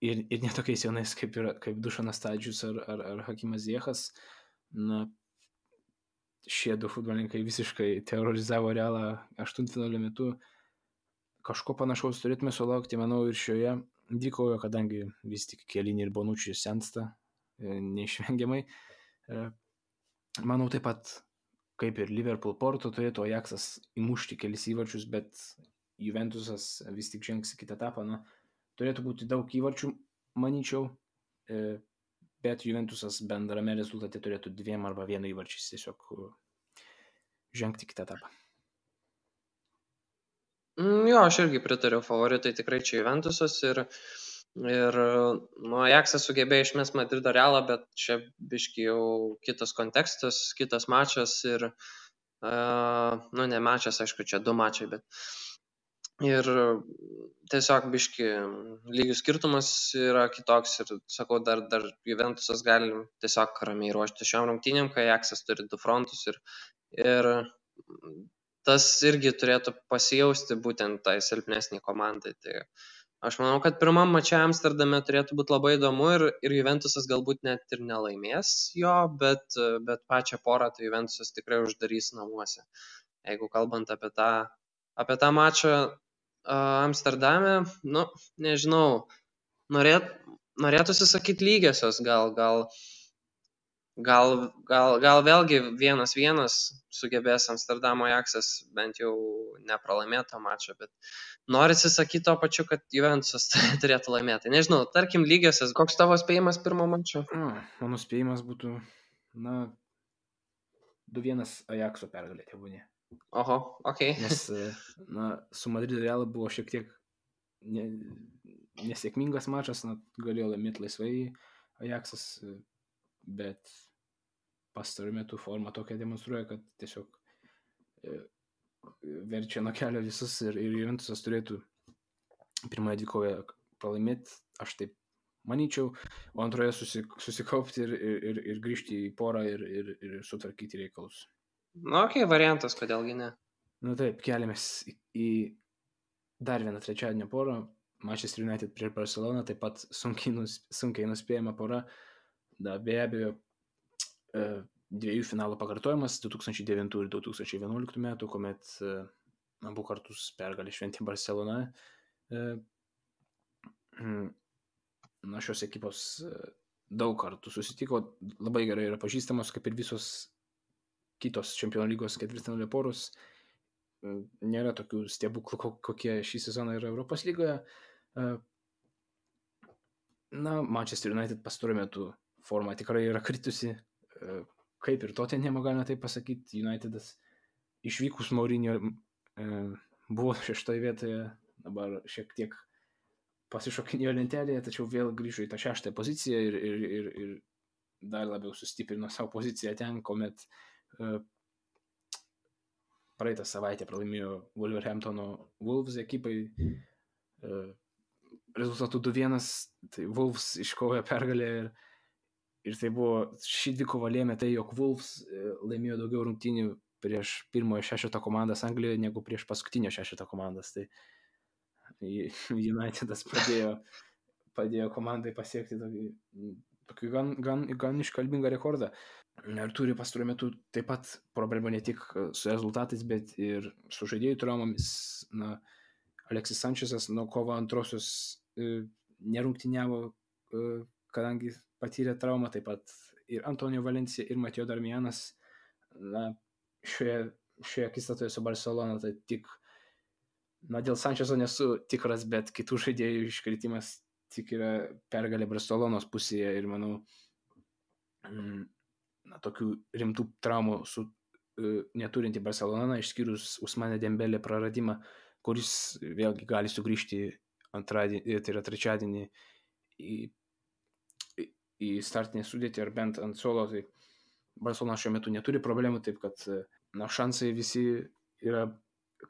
ir netokiais jaunais kaip Dušanas Tadžius ar Hakimas Ziechas. Na, šie du futbolininkai visiškai terorizavo Realą aštuntfinalio metu. Kažko panašaus turėtume sulaukti, manau, ir šioje dvikovoje, kadangi vis tik Chiellini ir Bonucci sensta neišvengiamai. Manau, taip pat, kaip ir Liverpool Porto, turėtų Ajaxas įmušti kelis įvarčius, bet Juventusas vis tik žengs į kitą etapą. Na, turėtų būti daug įvarčių, manyčiau, bet Juventusas bendrame rezultate turėtų 2 arba 1 įvarčiais tiesiog žengti kitą etapą. Jo, aš irgi pritariu, favoritai tikrai čia Juventusas ir Ajaxas sugebėjo išmest Madrido Realą, bet čia biški jau kitas kontekstas, kitas mačas ir, ne mačas, aišku, čia 2 mačai, bet ir tiesiog biški lygių skirtumas yra kitoks ir sakau, dar Juventusas gali tiesiog ramiai ruošti šiom rungtynėm, kai Ajaxas turi 2 frontus ir tas irgi turėtų pasijausti būtent tai silpnesnį komandai. Tai aš manau, kad pirmam mače Amsterdame turėtų būti labai įdomu ir Juventusas galbūt net ir nelaimės jo, bet pačią porą tai Juventusas tikrai uždarys namuose. Jeigu kalbant apie tą mačą Amsterdame, nežinau, norėtųsi sakyti lygiosios, gal vėlgi 1-1 sugebės Amsterdamo Ajaxas bent jau nepralaimėto mačą, bet norisi sakyti to pačiu, kad Juventusas turėtų laimėti. Nežinau, tarkim lygiosios, koks tavo spėjimas pirmo mačo? Mano spėjimas būtų, 2-1 Ajaxo pergalė tebūnie. Oho, okei. Nes, su Madrido Realu buvo šiek tiek nesėkmingas mačas, galėjo laimėti laisvai Ajaxas, bet pastaruoju metu forma tokia demonstruoja, kad tiesiog verčia nuo kelio visus ir Juventusas turėtų pirmoje dvikovoje pralaimėti, aš taip manyčiau, o antroje susikaupti ir grįžti į porą ir sutvarkyti reikalus. Variantas, kodėlgi ne. Taip, keliamės į dar vieną trečiadienio porą, Manchester United prieš Barceloną, taip pat sunkiai nuspėjama pora. Be abejo, 2 finalų pakartojimas 2009 ir 2011 metų, kuomet abu kartus pergalę šventė Barcelona. Šios ekipos daug kartų susitiko, labai gerai yra pažįstamos, kaip ir visos kitos Čempionų lygos ketvirtfinalio poros. Nėra tokių stebuklų, kokie šį sezoną yra Europos lygoje. Manchester United pastaruoju metu forma tikrai yra kritusi, kaip ir Tottenham, galima taip pasakyti. Unitedas išvykus Mourinho buvo 6 vietoje, dabar šiek tiek pasišokinėjo lentelėje, tačiau vėl grįžo į tą 6 poziciją ir dar labiau sustiprino savo poziciją ten, kuomet praeitą savaitę pralaimėjo Wolverhamptono Wolves ekipai rezultatų 2-1, tai Wolves iškovojo pergalę Ir tai buvo, ši dvikova lėmė tai, jog Wolves laimėjo daugiau rungtynių prieš pirmojo šešeto komandas Anglijoje negu prieš paskutinio šešeto komandas. Tai Unitedas padėjo komandai pasiekti tokį gan iškalbingą rekordą. Ir turi pastaruoju metu taip pat problemų ne tik su rezultatais, bet ir su žaidėjų traumomis. Alexis Sanchezas nuo kovo antrosios nerungtyniavo, kadangi patyrė traumą, taip pat ir Antonio Valencia, ir Mateo Darmianas. Šioje akistatoje su Barcelona, tai tik, dėl Sanchezo nesu tikras, bet kitų žaidėjų iškritimas tik yra pergalė Barcelonos pusėje ir manau, tokių rimtų traumų neturinti Barcelona, išskyrus Ousmane Dembele praradimą, kuris vėlgi gali sugrįžti antradienį, tai yra trečiadienį į startinę sudėtį ar bent ant suolo. Tai Barcelona šiuo metu neturi problemų, taip kad šansai visi yra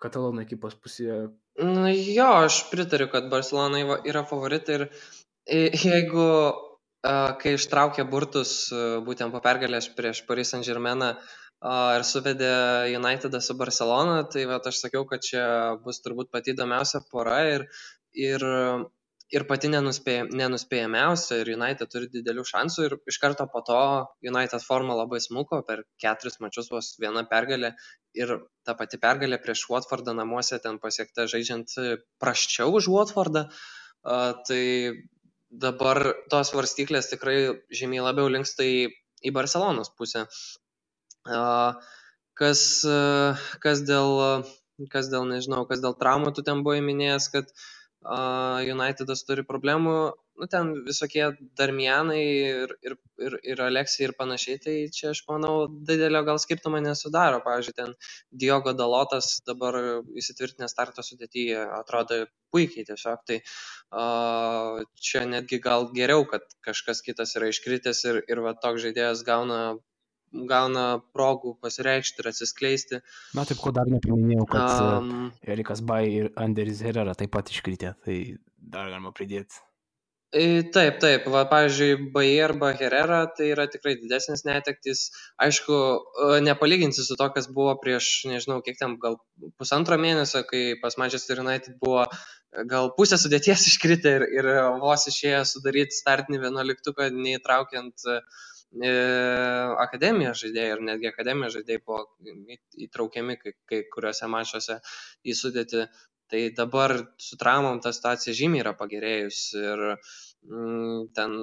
Katalonų ekipos pusėje. Jo, aš pritariu, kad Barcelona yra favoritai ir jeigu kai ištraukė burtus būtent po pergalės prieš Paris Saint-Germainą ir suvedė Unitedą su Barcelona, tai aš sakiau, kad čia bus turbūt pati įdomiausia pora ir pati nenuspėjamiausia, ir United turi didelių šansų, ir iš karto po to United forma labai smuko, per 4 mačius vos viena pergalė, ir ta pati pergalė prieš Watfordą namuose ten pasiekta žaidžiant prasčiau už Watfordą, tai dabar tos svarstyklės tikrai žymiai labiau linksta į Barcelonos pusę. Kas dėl traumų, tu ten buvai minėjęs, kad Unitedas turi problemų, ten visokie Darmianai ir Alexei ir panašiai, tai čia aš manau didelio gal skirtumo nesudaro. Pavyzdžiui, ten Diogo Dalotas dabar įsitvirtinęs starto sudėtyje atrodo puikiai tiesiog, tai čia netgi gal geriau, kad kažkas kitas yra iškritęs ir toks žaidėjas gauna progų pasireikšti ir atsiskleisti. Taip, ko dar nepaminėjau, kad Erikas Bai ir Anderis Herrera taip pat iškritė, tai dar galima pridėti. Taip, pavyzdžiui, Bai arba Herrera tai yra tikrai didesnis netektis. Aišku, nepalyginsi su to, kas buvo prieš, nežinau, kiek ten, gal pusantro mėnesio, kai pas Manchester United buvo gal pusę sudėties iškritę ir vos išėjo sudaryti startinį 11-tuką, neįtraukiant akademijos žaidėjai, ir netgi akademijos žaidėjai buvo įtraukiami kai kuriuose mačuose į sudėtį. Tai dabar su traumom ta situacija žymiai yra pagerėjus ir ten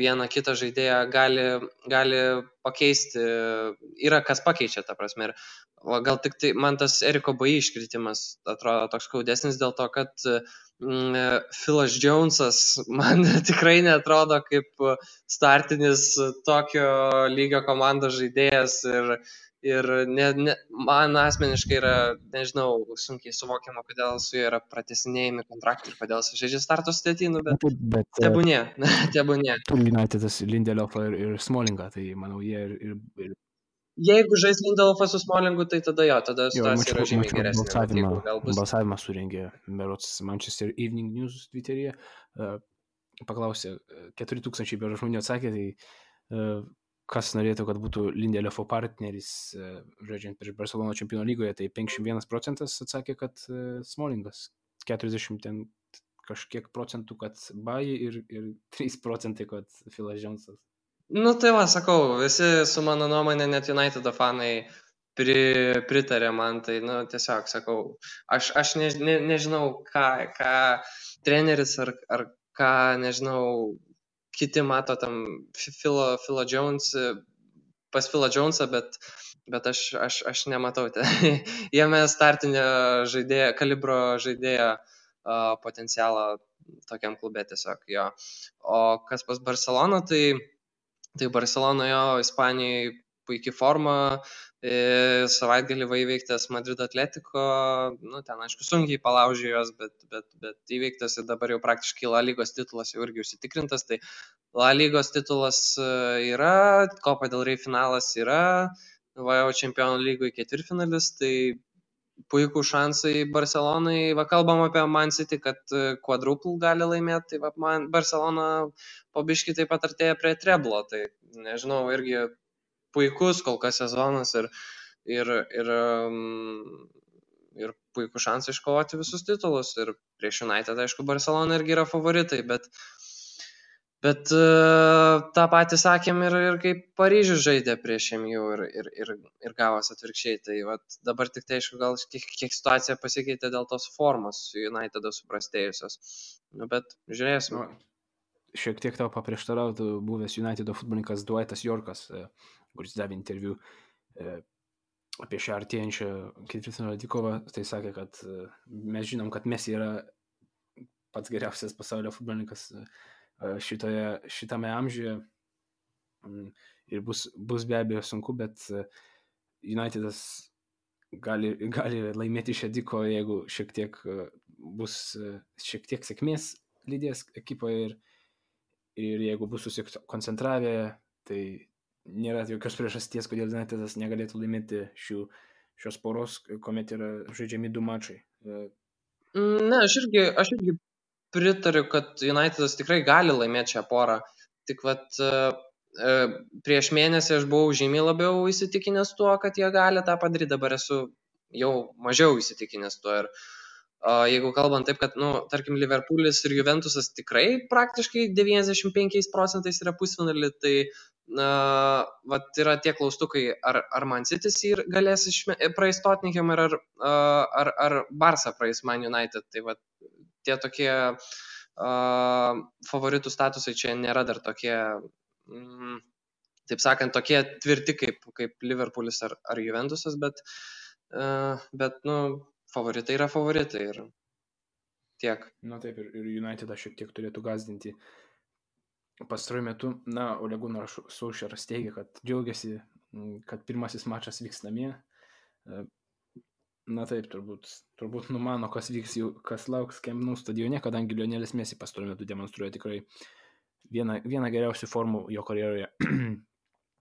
vieną kitą žaidėją gali pakeisti, yra kas pakeičia, ta prasme. Ir gal tik tai man tas Eriko Bai iškritimas atrodo toks skaudesnis dėl to, kad Philas Jonesas man tikrai neatrodo kaip startinis tokio lygio komandos žaidėjas ir man asmeniškai yra, nežinau, sunkiai suvokiama, kodėl su juo yra pratesinėjami kontraktai ir kodėl su žaidžia starto sudėtį, bet tebūnie. Turi Unitedas Lindelofą ir Smolingą, tai manau jie ir... Jeigu žais Lindelofas su Smolingu, tai tada situacija yra žymiai geresnė. Balsavimą surengė berods Manchester Evening News Twitteryje, paklausė, 4000 berods žmonių atsakė, tai kas norėtų, kad būtų Lindelofo partneris žaidžiant prieš Barcelona čempionų lygoje, tai 51% atsakė, kad Smolingas, 40 ten kažkiek procentų, kad Bai ir 3%, kad Philas Jonesas. Tai sakau, visi su mano nuomonė, net United fanai pritarė man, tai tiesiog sakau, aš nežinau, ką treneris ar ką, nežinau, kiti mato tam Philą Jones, pas Philą Jonesą, bet aš nematau jame startinio žaidėjo, kalibro žaidėjo potencialą tokiam klube tiesiog jo. O kas pas Barcelona, tai Barcelona jo Ispanijai puikiai forma, savaitgalį įveiktas Madrid Atletico, ten aišku sunkiai palaužė jos, bet įveiktas ir dabar jau praktiškai La Lygos titulas jau irgi užsitikrintas, tai La Lygos titulas yra, Copa del Rey finalas yra, jau Čempionų lygoj ketvirtfinalis, tai puikų šansai Barcelonai. Va, kalbam apie Man City, kad quadruple gali laimėti, tai va, man Barcelona po biškį taip pat artėja prie treblo. Tai nežinau, irgi puikus kol kas sezonas ir puikų šansą iškovoti visus titulus. Ir prieš United, aišku, Barcelona irgi yra favoritai, bet tą patį sakėm ir kaip Paryžius žaidė prieš MU ir gavos atvirkščiai. Tai vat, dabar tik tai, aišku, gal kiek situacija pasikeitė dėl tos formos United'o suprastėjusios. Nu, bet žiūrėsim. Šiek tiek tau paprieštarautų buvęs United'o futbolininkas Dwightas Yorkas, kuris davė interviu apie šią artėjančią ketvirtfinalio dvikovą. Tai sakė, kad mes žinom, kad Messi yra pats geriausias pasaulio futbolininkas šitame amžiuje ir bus be abejo sunku, bet United'as gali laimėti šią dvikovą, jeigu bus šiek tiek sėkmės lydės ekipoje ir jeigu bus susikoncentravę, tai nėra jokios priežasties, kodėl United'as negalėtų laimėti šios poros, kuomet yra žaidžiami 2 mačai. Ne, aš irgi pritariu, kad United'as tikrai gali laimėti šią porą. Tik vat prieš mėnesį aš buvau žymiai labiau įsitikinęs tuo, kad jie gali tą padaryti. Dabar esu jau mažiau įsitikinęs tuo. Ir jeigu kalbant taip, kad, tarkim, Liverpoolis ir Juventusas tikrai praktiškai 95% yra pusfinalį, tai vat yra tie klaustukai, ar Man City's galės praeis Tottenham ar Barça praeis Man United. Tai vat tie tokie favoritų statusai čia nėra dar tokie, taip sakant, tokie tvirti kaip Liverpoolis ar Juventusas, bet favoritai yra favoritai ir tiek. Na taip, ir United šiek tiek turėtų gazdinti. Pastaruoju metu, Ole Gunnar Solskjaeras teigia, kad džiaugiasi, kad pirmasis mačas vyks namie. Na taip, turbūt numano, kas vyks, kas lauks Camp Nou stadione, kadangi Lionelis Messi pastaruoju metu demonstruoja tikrai vieną geriausių formų jo karjeroje,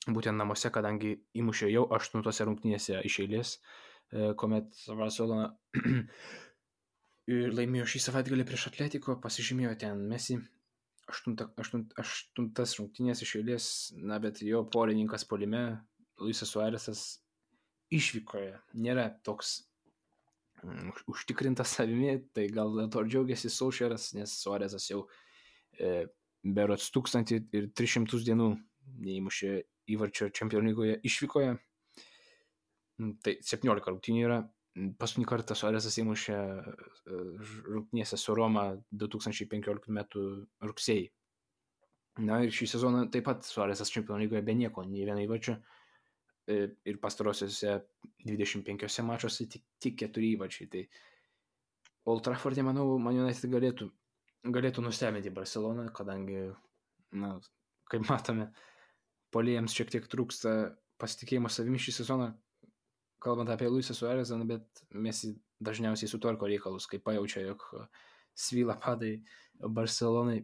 būtent namuose, kadangi įmušė jau 8 rungtynėse iš eilės, kuomet Barcelona laimėjo šį savaitgalį prieš Atletico, pasižymėjo ten Messi 8 rungtynės iš eilės, bet jo polininkas puolime, Luisas Suarezas, išvykoje nėra toks užtikrintas savimi, tai gal dėl to džiaugiasi Solskjaeras, nes Suarezas jau berods 1300 dienų neįmušė įvarčio Čempionų lygoje išvykoje. Tai 17 rungtynių yra. Paskutinį kartą Suarezas įmušė rungtynėse su Roma 2015 metų rugsėjį. Na ir šį sezoną taip pat Suarezas Čempionų lygoje be nieko, nei vieno įvarčio. Ir pastarosiuose 25 mačuose tik 4 įvarčiai. Tai Old Trafford'e, manau, Man United galėtų nustebinti Barceloną, kadangi, kaip matome, puolėjams šiek tiek trūksta pasitikėjimo savimi šį sezoną, kalbant apie Luisą Suarezą, bet Messi dažniausiai sutvarko reikalus, kai pajaučia, jog svyla padai Barcelonai.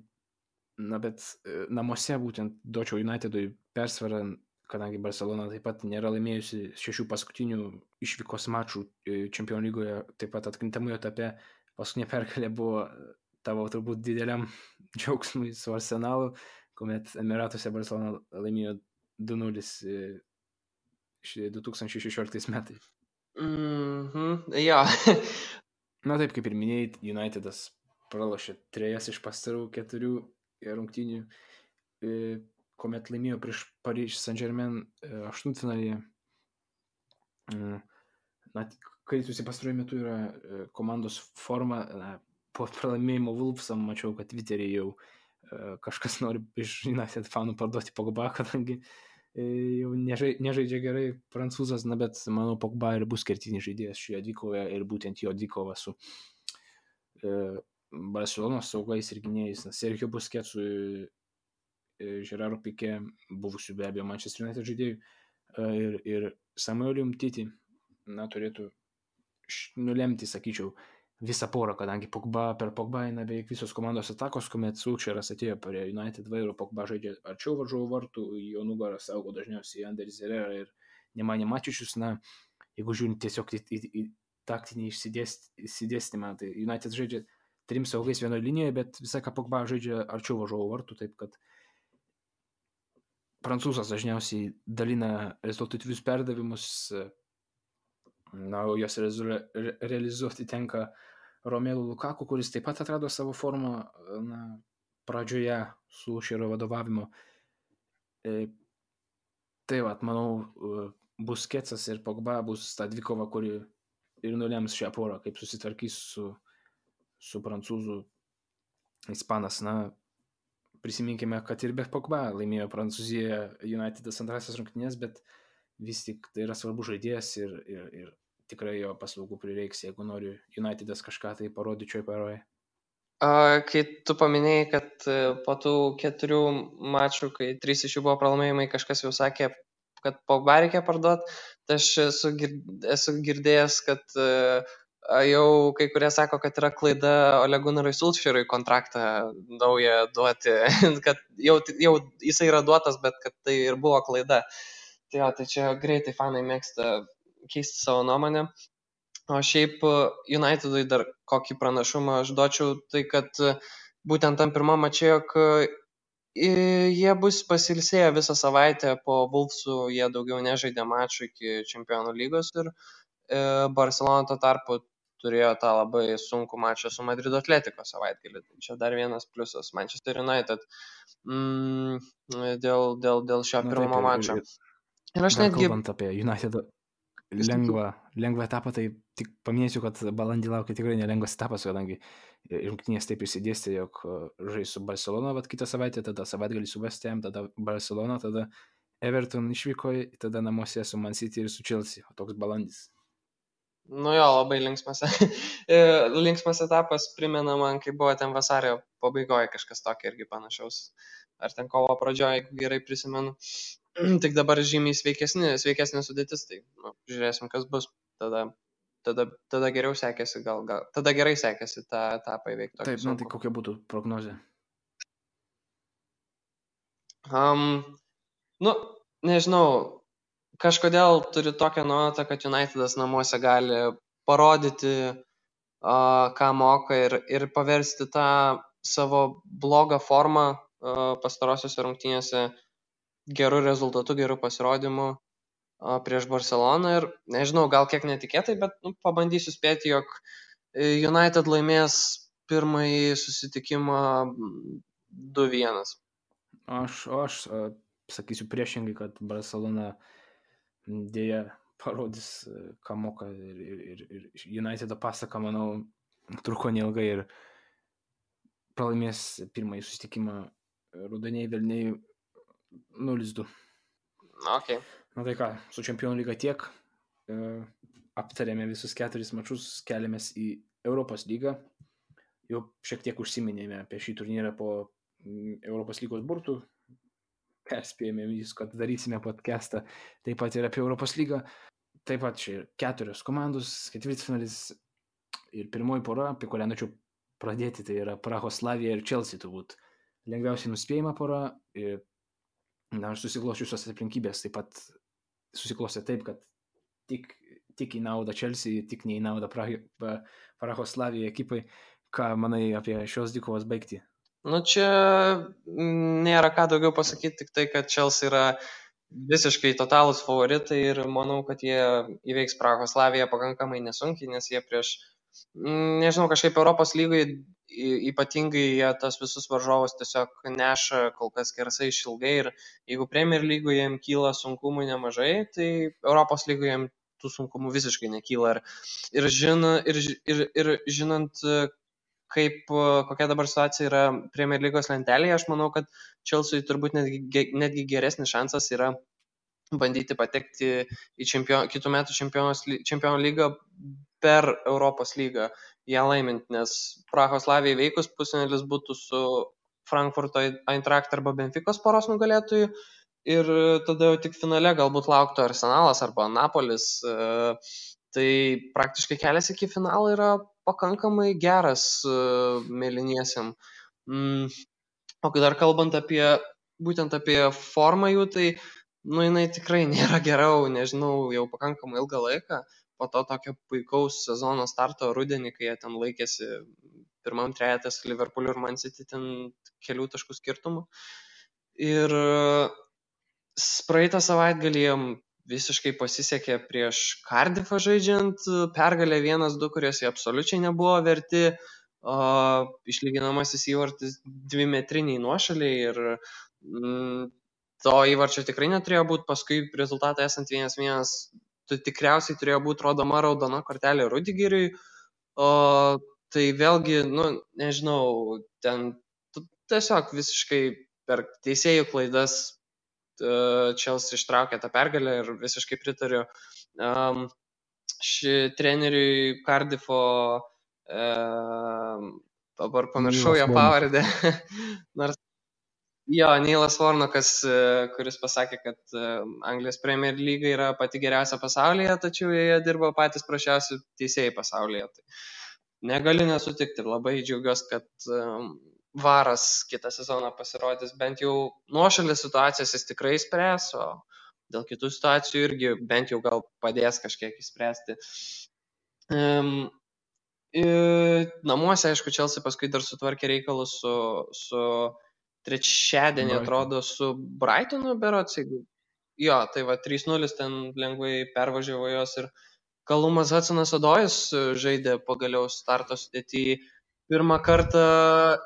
Bet namuose būtent duočiau Unitedui persvarą, kadangi Barcelona taip pat nėra laimėjusi 6 paskutinių išvykos mačų Čempionų lygoje, taip pat atkrintamųjų etape. Paskutinė pergalė buvo tavo turbūt dideliam džiaugsmui su Arsenalu, kuomet Emiratuose Barcelona laimėjo 2-0 2016 metais. Ja. Na taip, kaip ir minėjai, United'as pralošė 3 iš pastarų 4 rungtynių, kuomet laimėjo prieš Paryžius Saint-Germain aštuntfinalyje. Kritusi pastaruoju metu yra komandos forma. Po pralaimėjimo Wolvesam mačiau, kad Twitter'e jau kažkas nori iš United fanų parduoti Pogba, kadangi jau nežaidžia gerai prancūzas, bet manau Pogba ir bus kertinis žaidėjas šioje dvikovoje ir būtent jo dvikova su Barcelonos saugais ir gynėjais. Sergio Busquetsu, Gerardo Piqué, buvusių be abejo Manchester United žaidėjų ir Samueliu Umtiti turėtų nulemti, sakyčiau, visą porą, kadangi per Pogba eina beveik visos komandos atakos, kuomet Solskjaeras atėjo prie United vairo, Pogba žaidžia arčiau varžovų vartų, jo nugarą saugo dažniausiai Anderis Herrera ir Nemanja Mačičius. Jeigu žiūrint tiesiog į taktinį išsidėstymą. Tai United žaidžia 3 saugais vienoje linijoje, bet visą ką Pogba žaidžia arčiau varžovo vartų, taip kad prancūzas dažniausiai dalina rezultatyvius perdavimus, o jos realizuoti tenka Romelu Lukaku, kuris taip pat atrado savo formą pradžioje su Šero vadovavimu. Tai manau, Busquetsas ir Pogba bus ta dvikova, kuri ir nulems šią porą, kaip susitvarkys su prancūzų ispanas. Prisiminkime, kad ir be Pogba laimėjo Prancūzijoje United'as antrasis rungtynes, bet vis tik tai yra svarbus žaidėjas ir tikrai jo paslaugų prireiks, jeigu nori United'as kažką tai parodyti šioje paroje. Kai tu paminėjai, kad po tų 4 mačų, kai 3 iš jų buvo pralaimėjimai, kažkas jau sakė, kad Pogba reikia parduoti, tai aš esu girdėjęs, kad jau kai kurie sako, kad yra klaida Ole Gunnarui Solskjaerui kontraktą naują duoti, kad jau jisai yra duotas, bet kad tai ir buvo klaida. Tai čia greitai fanai mėgsta keisti savo nuomonę. O šiaip Unitedui dar kokį pranašumą aš duočiau, tai kad būtent tam pirmam mače, jog jie bus pasilsėję visą savaitę po Wolvesų, jie daugiau nežaidė mačų iki Čempionų lygos ir Barcelona tuo tarpu turėjo tą labai sunkų mačą su Madrido Atletico savaitgalį. Tai čia dar vienas pliusas Manchester United dėl šio pirmo mačo. Ir aš netgi... Kalbant apie United lengvą etapą, tai tik paminėsiu, kad balandį laukia tikrai nelengvas etapas, kadangi rungtynės taip išsidėstė, jog žais su Barcelona, kitą savaitę, tada savaitgalį su West Ham, tada Barcelona, tada Everton išvykoje, tada namuose su Man City ir su Chelsea, o toks balandis. Labai linksmas etapas, primena man, kai buvo ten vasario pabaigoje kažkas tokio irgi panašaus, ar ten kovo pradžioje, jeigu gerai prisimenu. Tik dabar žymiai sveikesnė sudėtis, tai žiūrėsim, kas bus. Tada geriau sekėsi, tada gerai sekėsi tą etapą įveikti. Taip, tai kokia būtų prognozė? Nežinau, kažkodėl turiu tokią nuojautą, kad United'as namuose gali parodyti, ką moka ir paversti tą savo blogą formą pastarosiuose rungtynėse gerų rezultatų, gerų pasirodymų prieš Barceloną ir nežinau, gal kiek netikėtai, bet pabandysiu spėti, jog United laimės pirmąjį susitikimą 2-1. Aš sakysiu priešingai, kad Barcelona dėja parodys, ką moka ir Unitedo pasaka, manau, truko neilgai ir pralaimės pirmąjį susitikimą Rudeniai Velniai 0-2. Okay. Tai ką, su Čempionų lyga tiek. Aptarėme visus 4 mačus, keliamės į Europos lygą. Jau šiek tiek užsiminėme apie šį turnyrą po Europos lygos burtų. Perspėjome vis, kad darysime podcastą taip pat ir apie Europos lygą. Taip pat čia 4 komandos, ketvirtfinalis ir pirmoji pora, apie kurią norėčiau pradėti, tai yra Prahos Slavija ir Chelsea turbūt. Lengviausiai nuspėjama pora ir susiklosčiusios aplinkybės taip pat susiklostė taip, kad tik į naudą Chelsea, tik ne į naudą Prahos Slavija ekipai. Ką manai apie šios dvikovos baigtį? Čia nėra ką daugiau pasakyti, tik tai, kad Chelsea yra visiškai totalūs favoritai ir manau, kad jie įveiks Prahos Slaviją pakankamai nesunkiai, nes jie prieš, kažkaip Europos lygai ypatingai jie tas visus varžovus tiesiog neša kol kas skersai išilgai ir jeigu Premier lygoje jiems kyla sunkumų nemažai, tai Europos lygoje jiems tų sunkumų visiškai nekyla ir žinant, kokia dabar situacija yra Premier lygos lentelėje, aš manau, kad Chelsea turbūt netgi geresnis šansas yra bandyti patekti į kitų metų čempionų lygą per Europos lygą ją laimint, nes Prahos Slavijai veikus pusfinalis būtų su Frankfurto Eintracht arba Benficos poros nugalėtojų ir tada jau tik finale galbūt lauktų Arsenalas arba Napolis. Tai praktiškai kelias iki finalo yra pakankamai geras mėlyniesiam. O dar kalbant būtent apie formą jų, tai jinai tikrai nėra gera, nežinau, jau pakankamai ilgą laiką. po to tokio puikaus sezono starto rudenį, kai jie ten laikėsi pirmam trejete su Liverpooliu ir Man City ten kelių taškų skirtumų. Ir praeitą savaitgalį jiem visiškai pasisekė prieš Cardiffą žaidžiant, pergalė 1-2, kurios jie absoliučiai nebuvo verti, išlyginamasis įvartis 2-metriniai nuošaliai ir to įvarčio tikrai neturėjo būti, paskui rezultatą esant 1-1, tikriausiai turėjo būti rodoma raudona kortelė Rudigeriui, tai vėlgi, nežinau, ten tiesiog visiškai per teisėjų klaidas Chelsea ištraukė tą pergalę ir visiškai pritariu treneriui Cardiffo, dabar pamiršau jo pavardę, nors Neilas Warnockas, kuris pasakė, kad Anglijos Premier Lyga yra pati geriausia pasaulyje, tačiau jie dirba patys prašiausi teisėjai pasaulyje. Tai negaliu nesutikti ir labai džiaugiuosi, kad Varas kitą sezoną pasirodys, bent jau nuošalės situacijas jis tikrai spręs, o dėl kitų situacijų irgi bent jau gal padės kažkiek įspręsti. Namuose, aišku, Chelsea paskui dar sutvarkė reikalus su trečiadienį, atrodo, su Brightonu berods. Jo, tai va 3-0 ten lengvai pervažiavo jos ir Kalumas Hudsonas-Odojus žaidė pagaliau starto sudėty pirmą kartą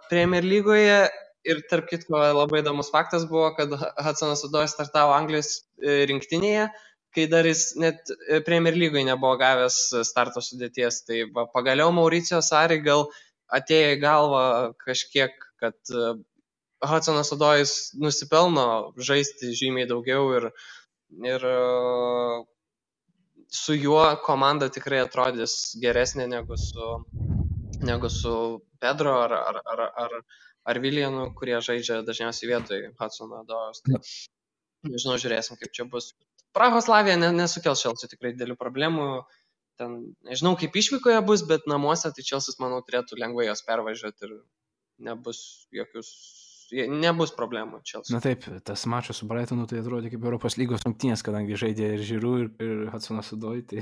Premier lygoje ir tarp kitko labai įdomus faktas buvo, kad Hudsonas-Odojus startavo Anglijos rinktinėje, kai dar jis net Premier lygoje nebuvo gavęs starto sudėties. Tai va, pagaliau Mauricio Sarri gal atėjo į galvą kažkiek, kad Hudsonas-Odojus nusipelno žaisti žymiai daugiau ir su juo komanda tikrai atrodys geresnė negu su Pedro ar Viljanu, kurie žaidžia dažniausiai vietoj Hudsono-Odojus. Tai, nežinau, žiūrėsim, kaip čia bus. Prahos Slavija nesukels Chelsea tikrai didelių problemų. Ten, nežinau, kaip išvykoje bus, bet namuose tai Chelsea, manau, turėtų lengvai jos pervažiuoti ir nebus problemų Chelsea. Na taip, tas mačas su Brightonu tai atrodė kaip Europos lygos rungtynės, kadangi žaidė ir Giroud, ir Hudsonas-Odojus, tai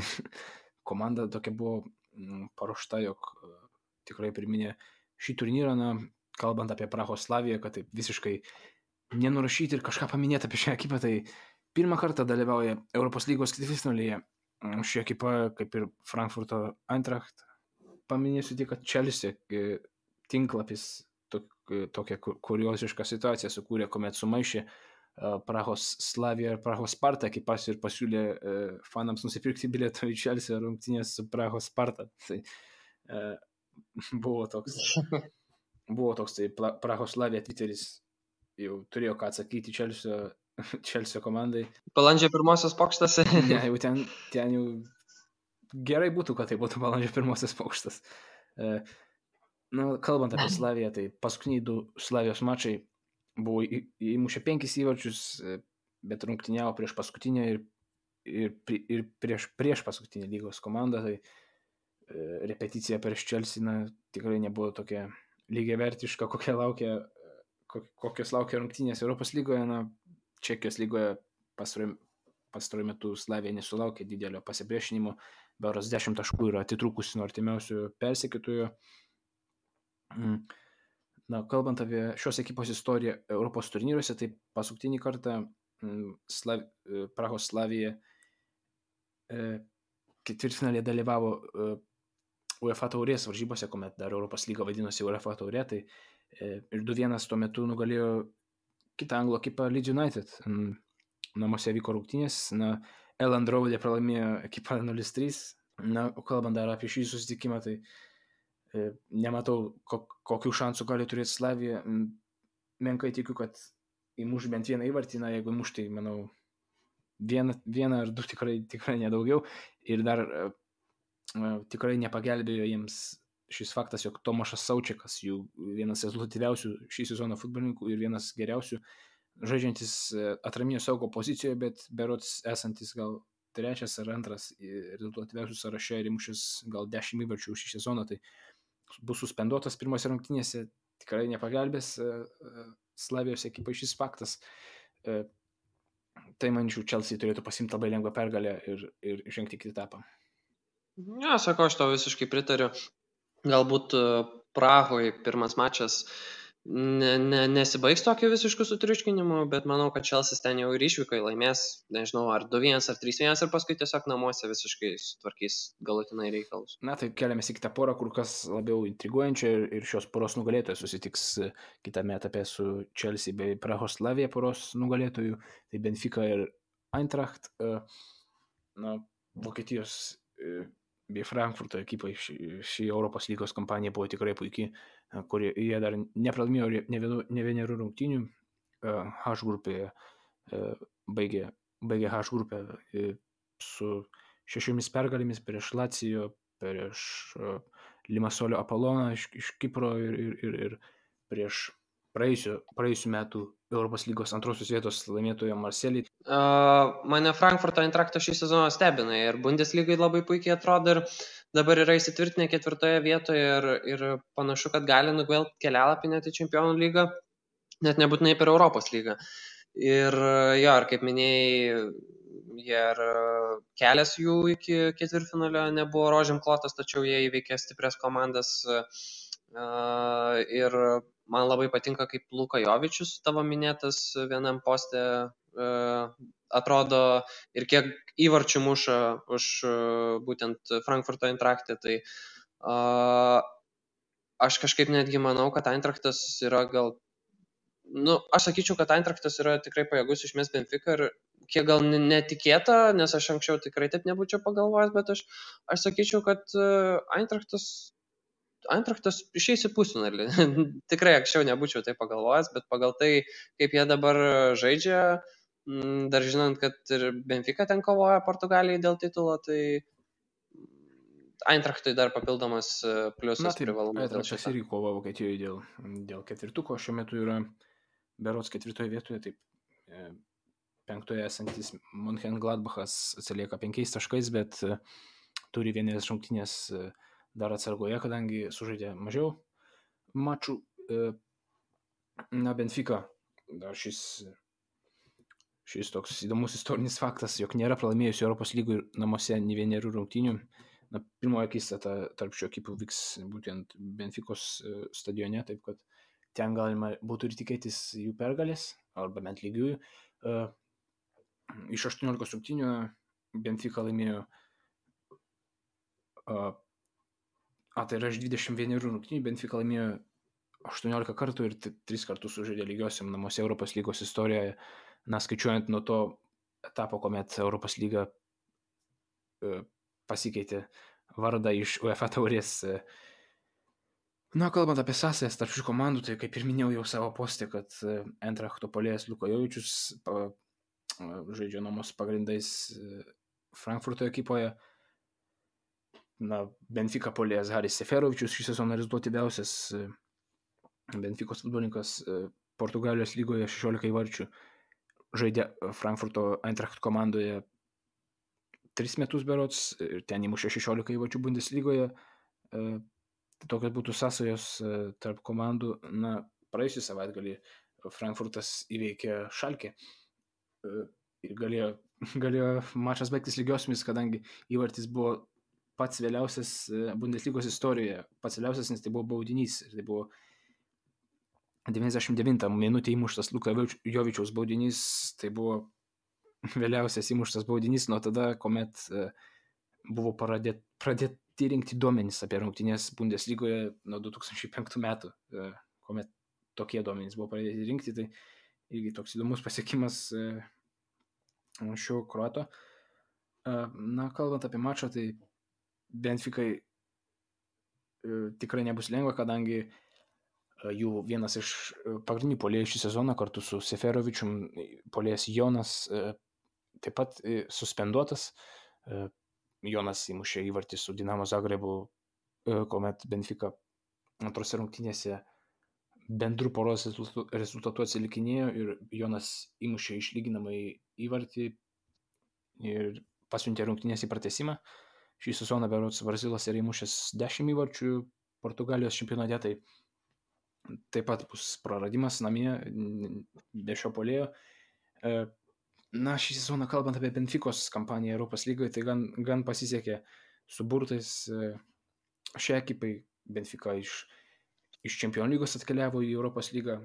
komanda tokia buvo paruošta, jog tikrai priminė šį turnyrą, kalbant apie Prahos Slaviją, kad taip visiškai nenurašyti ir kažką paminėti apie šią ekipą, tai pirmą kartą dalyvauja Europos lygos ketvirtfinalyje. Ši ekipa, kaip ir Frankfurto Eintracht, paminėsiu tik, kad Chelsea tinklapis tokią kuriozišką situaciją sukūrė, kuomet sumaišė Prahos Slaviją ir Prahos Spartą ekipas ir pasiūlė fanams nusipirkti bilietą į Chelsea rungtynės su Prahos Sparta. Tai buvo toks tai Prahos Slavija Twitteris jau turėjo ką atsakyti Chelsea komandai. Balandžio 1 pokštas. Ne, jau ten jau gerai būtų, kad tai būtų balandžio 1 pokštas. Kalbant apie Slaviją, tai paskutiniai 2 Slavijos mačai buvo įmušę 5 įvarčius, bet rungtyniavo prieš paskutinę ir prieš paskutinę lygos komandą, tai repeticija prieš Chelsea tikrai nebuvo tokia lygiavertiška, kokios laukia rungtynės Europos lygoje. Čekijos lygoje pastaruoju metu Slavija nesulaukė didelio pasipriešinimo, berods 10 taškų yra atitrūkusi nuo artimiausių persekiotojų. Kalbant apie šios ekipos istoriją Europos turnyruose, tai paskutinį kartą Prahos Slavija ketvirtfinalyje dalyvavo UEFA taurės varžybose, kuomet dar Europos lyga vadinosi UEFA taurė, tai ir 2-1 tuo metu nugalėjo kitą anglų ekipą Leeds United. Namuose vyko rungtynės, Elland Road'e pralaimėjo ekipą 0-3. Kalbant dar apie šį susitikimą, tai nematau, kokių šansų gali turėti Slavija. Menkai tikiu, kad įmuš bent vieną įvartį, jeigu įmuš, tai manau vieną ar 2 tikrai nedaugiau. Ir dar tikrai nepagelbėjo jiems šis faktas, jog Tomašas Saučikas, jų vienas rezultatyviausių šį sezoną futbolininkų ir vienas geriausių, žaidžiantis atraminio saugo pozicijoje, bet berods esantis gal 3 ar 2 rezultatyviausių sąraše ir įmušęs gal 10 įvarčių šį sezoną, tai bus suspenduotas pirmose rungtynėse, tikrai nepagelbės Slavijos ekipai šis faktas. Tai, manyčiau, Chelsea turėtų pasimti labai lengvą pergalę ir žengti kitą etapą. Ja, sakau, aš tau visiškai pritariu. Galbūt Prahoje pirmas mačas nesibaigs tokiu visišku sutriuškinimu, bet manau, kad Čelsis ten jau ir išvykai laimės, nežinau, ar 2-1 ar 3-1 ir paskui tiesiog namuose visiškai sutvarkys galutinai reikalus. Na, tai keliamės į kitą porą, kur kas labiau intriguojančią ir šios poros nugalėtojas susitiks kitame etape su Chelsea bei Prahos Slavija poros nugalėtojų, tai Benfica ir Eintracht. Na, Vokietijos bei Frankfurto ekipai ši Europos lygos kampanija buvo tikrai puikiai, kur jie dar nepralaimėjo ne vienerių rungtynių. H grupėje baigė H grupę su 6 pergalėmis prieš Lacijo, prieš Limasolio Apoloną iš Kipro ir prieš praėjusių metų Europos lygos antrosios vietos laimėtojo Marselį. Mane Frankfurto Eintraktas šį sezoną stebina ir Bundeslygai labai puikiai atrodo ir dabar yra įsitvirtinę 4 vietoje ir panašu, kad gali nugvelbti kelialapį net į Čempionų lygą, net nebūtinai per Europos lygą. Ir jo, ir kaip minėjai, ir kelias jų iki ketvirtfinalio nebuvo rožėm klotas, tačiau jie įveikė stiprias komandas. Ir man labai patinka, kaip Luka Jovičius, tavo minėtas, vienam poste atrodo ir kiek įvarčių muša už būtent Frankfurto Eintrachtą. Tai aš kažkaip netgi manau, kad Eintrachtas yra aš sakyčiau, kad Eintrachtas yra tikrai pajėgus išmest Benfica ir kiek gal netikėta, nes aš anksčiau tikrai taip nebūčiau pagalvojęs, bet aš sakyčiau, kad Eintrachtas išeis į pusfinalį. Tikrai anksčiau nebūčiau tai pagalvojęs, bet pagal tai, kaip jie dabar žaidžia, dar žinant, kad ir Benfica ten kovoja Portugalijai dėl titulo, tai Eintrachtui dar papildomas pliusas privalumas. Eintrachtas irgi kova Vokietijoje dėl ketvirtuko, šiuo metu yra berods 4 vietoje, taip 5 esantis Mönchengladbachas atsilieka 5 taškais, bet turi vienas rungtynės dar atsargoje, kadangi sužaidė mažiau mačų. Na, Benfica, dar šis toks įdomus istorinis faktas, jog nėra pralaimėjusi Europos lygų namuose nei vienerių rungtynių. Na, pirmoji akistata tarp šių ekipų vyks būtent Benficos stadione, taip kad ten galima būtų ir tikėtis jų pergalės, arba bent lygiųjų. Iš 18 rungtynių Benfica laimėjo tai yra iš 21 rungtynių, Benfica laimėjo 18 kartų ir 3 kartus sužaidė lygiosiam namuose Europos lygos istorijoje. Na, skaičiuojant nuo to etapo, kuomet Europos lyga pasikeitė vardą iš UEFA taurės. Na, kalbant apie sąsajas tarp šių komandų, tai kaip ir minėjau jau savo postė, kad Eintrachto puolėjas Luka Jovičius žaidžia nuomos pagrindais Frankfurto ekipoje. Na, Benfica puolėjas Haris Seferovičius šį sezoną rezultatyviausias Benficos futbolininkas Portugalijos lygoje 16 įvarčių. Žaidė Frankfurto Eintracht komandoje 3 metus berods ir ten įmušė 16 įvarčių Bundeslygoje. Tokios būtų sąsajos tarp komandų. Na, praėjusį savaitgalį Frankfurtas įveikė Schalke ir galėjo mačas baigtis lygiosiomis, kadangi įvartis buvo pats vėliausias Bundeslygos istorijoje. Pats vėliausias, nes tai buvo baudinys. Ir tai buvo 99 minutė įmuštas Luka Jovičiaus baudinys. Tai buvo vėliausias įmuštas baudinys nuo tada, kuomet buvo pradėti rinkti duomenys apie rungtynes Bundeslygoje nuo 2005 metų, kuomet tokie duomenys buvo pradėti rinkti. Tai irgi toks įdomus pasiekimas šio kroato. Na, kalbant apie mačą, tai Benficai tikrai nebus lengva, kadangi jų vienas iš pagrindinių puolėjų šį sezoną kartu su Seferovičium, puolėjas Jonas, taip pat suspenduotas. Jonas įmušė įvartį su Dinamo Zagrebu, kuomet Benfica antrose rungtynėse bendrų poros rezultatų atsilikinėjo ir Jonas įmušė išlyginamąjį įvartį ir pasiuntė rungtynės į pratęsimą. Šį sezoną berods Brazilas yra įmušęs 10 įvarčių Portugalijos čempionate, tai taip pat bus praradimas namie be šio puolėjo. Na, šį sezoną kalbant apie Benficos kampaniją Europos lygoje, tai gan pasisekė su burtais. Šią ekipai Benfica iš Čempionų lygos atkeliavo į Europos lygą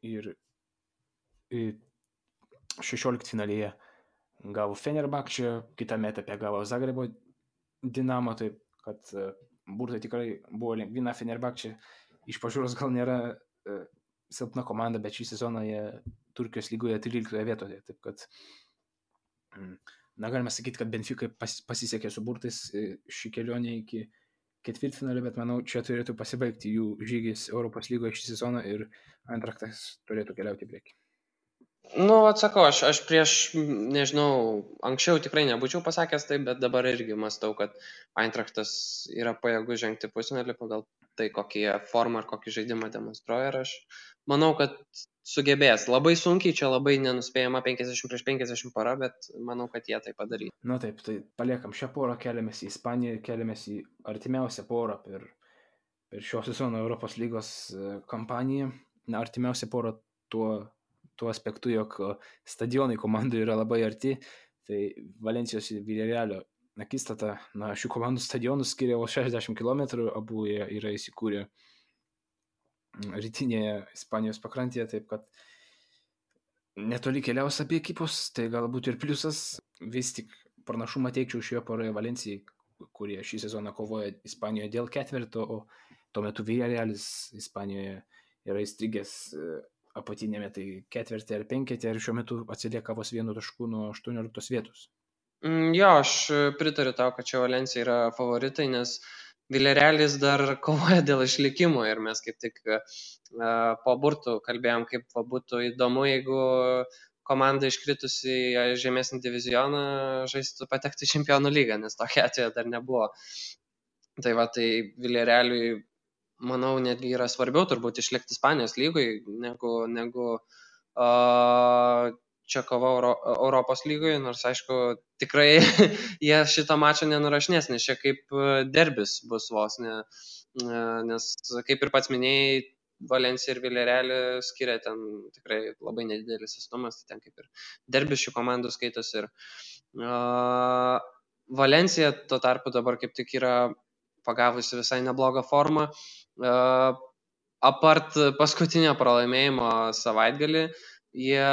ir 16 finalėje gavo Fenerbahčę, kitame etape gavo Zagrebo Dinamo, taip kad burtai tikrai buvo lengvina. Fenerbahčė iš pažiūros gal nėra silpna komanda, bet šį sezoną jie Turkijos lygoje 13 vietoje, taip kad galime sakyti, kad Benfica pasisekė su burtais šį kelionę iki ketvirtfinalio, bet manau, čia turėtų pasibaigti jų žygis Europos lygoje šį sezoną ir Eintrachtas turėtų keliauti į priekį. Nu, atsakau, aš prieš, nežinau, anksčiau tikrai nebūčiau pasakęs taip, bet dabar irgi mąstau, kad Eintrachtas yra pajėgus žengti pusfinalį pagal tai, kokį formą ir kokį žaidimą demonstruoja. Ir aš manau, kad sugebės. Labai sunkiai, čia labai nenuspėjama 50/50 para, bet manau, kad jie tai padarys. Na taip, tai paliekam šią porą, keliamės į Ispaniją, keliamės į artimiausią porą per šio sezono Europos lygos kampaniją. Na, artimiausia porą tuo aspektu, jog stadionai komandų yra labai arti, tai Valencijos ir Villarrealio akistata, na, šių komandų stadionų skiria 60 km, abu jie yra įsikūrę rytinėje Ispanijos pakrantėje, taip kad netoli keliaus apie ekipos, tai galbūt ir pliusas. Vis tik pranašumą teikčiau šioje poroje Valencijai, kurie šį sezoną kovoja Ispanijoje dėl ketvirto, o tuo metu Villarrealis Ispanijoje yra įstrigęs apatinėme, tai ketvirtį ar penketį, ir šiuo metu atsilieka vos 1 tašku nuo 18 vietos. Jo, aš pritariu tau, kad čia Valencija yra favoritai, nes Villarrealis dar kovoja dėl išlikimo ir mes kaip tik po burtų kalbėjom, kaip būtų įdomu, jeigu komanda iškritusi į žemesnį divizioną žaistų patekti į Čempionų lygą, nes tokia atveju dar nebuvo. Tai va, tai Villarrealiui, manau, netgi yra svarbiau turbūt išlikti Ispanijos lygoj, negu čia kova Europos lygoje, nors aišku, tikrai jie šitą mačą nenurašinės, nes čia kaip derbis bus vos, nes kaip ir pats minėjai, Valencija ir Villarrealį skiria ten tikrai labai nedidelis atstumas, tai ten kaip ir derbis šių komandų skaitos. Ir Valencija tuo tarpu dabar kaip tik yra pagavusi visai neblogą formą. Apart paskutinio pralaimėjimo savaitgalį, jie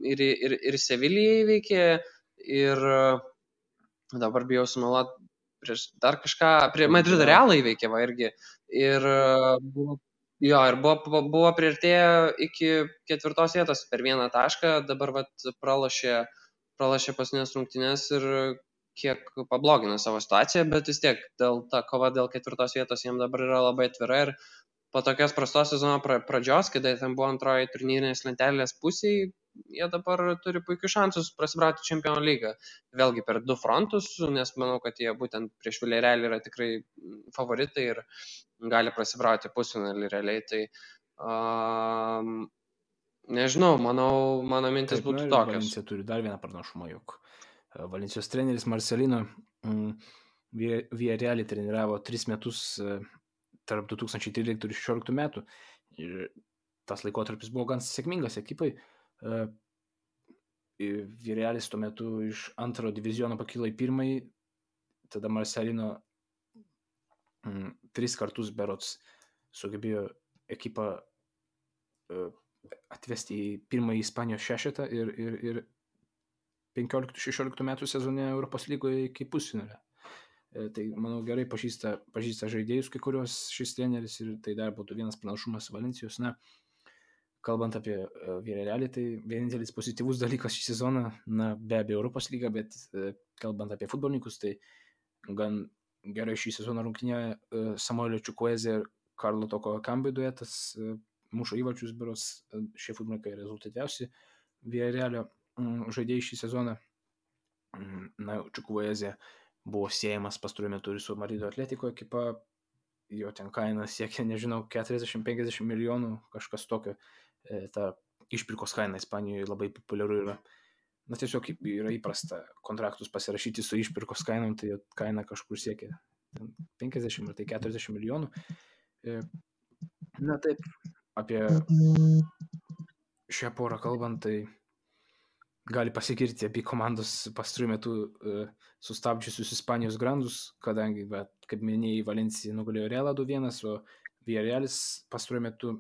ir Sevilijai įveikė, ir dabar bijau sumeluoti, prieš dar kažką, prie Madrido Realą įveikė, va, irgi. Ir buvo priartėję iki 4 vietos per 1 tašką, dabar pralošė paskutinės rungtynės ir kiek pablogino savo situaciją, bet vis tiek ta kova dėl 4 vietos jiems dabar yra labai atvira, ir po tokios prastos sezono pradžios, kada ten buvo antroji turnyrinės lentelės pusėje, jie dabar turi puikius šansus prasibrauti Čempionų lygą. Vėlgi per 2 frontus, nes manau, kad jie būtent prieš Villarrealį yra tikrai favoritai ir gali prasibrauti pusfinalį realiai. Tai nežinau, mano mintis būtų tokios. Valencija turi dar vieną pranašumą, jog Valencijos treneris Marcelino Villarrealį treniravo 3 metus tarp 2013 ir 2016 metų. Ir tas laikotarpis buvo gan sėkmingas ekipai. Villarrealis tuo metu iš 2 diviziono pakilo į 1, tada Marcelino 3 kartus berods sugebėjo ekipą atvesti į 1 Ispanijos šešetą ir 15-16 metų sezone Europos lygoje iki pusfinalio. Tai, manau, gerai pažįsta žaidėjus kai kurios šis treneris, ir tai dar būtų vienas pranašumas Valencijos. Na, kalbant apie Villarrealį, tai vienintelis pozityvus dalykas šį sezoną, na, be abejo Europos lyga, bet kalbant apie futbolininkus, tai gan gerai šį sezoną rungtynėje Samuelio Chukwueze ir Karlo Toko Ekambi duetas mušo įvarčius, berods šie futbolininkai rezultatyviausi Villarrealio žaidėjai šį sezoną. Na, Chukwueze buvo siejamas pastaruoju metu ir su Madrido Atletico ekipa, jo ten kaina siekia, nežinau, 40-50 milijonų, kažkas tokio. Ta išpirkos kaina Ispanijoje labai populiaru yra. Na, tiesiog yra įprasta kontraktus pasirašyti su išpirkos kainom, tai kaina kažkur siekia 50 ar tai 40 milijonų. Na taip, apie šią porą kalbant, tai gali pasigirti abi komandos pastaruoju metu sustabdžiusius Ispanijos grandus, kadangi, kaip minėjai, Valencija nugalėjo Realą 2-1, o Villarrealis pastaruoju metu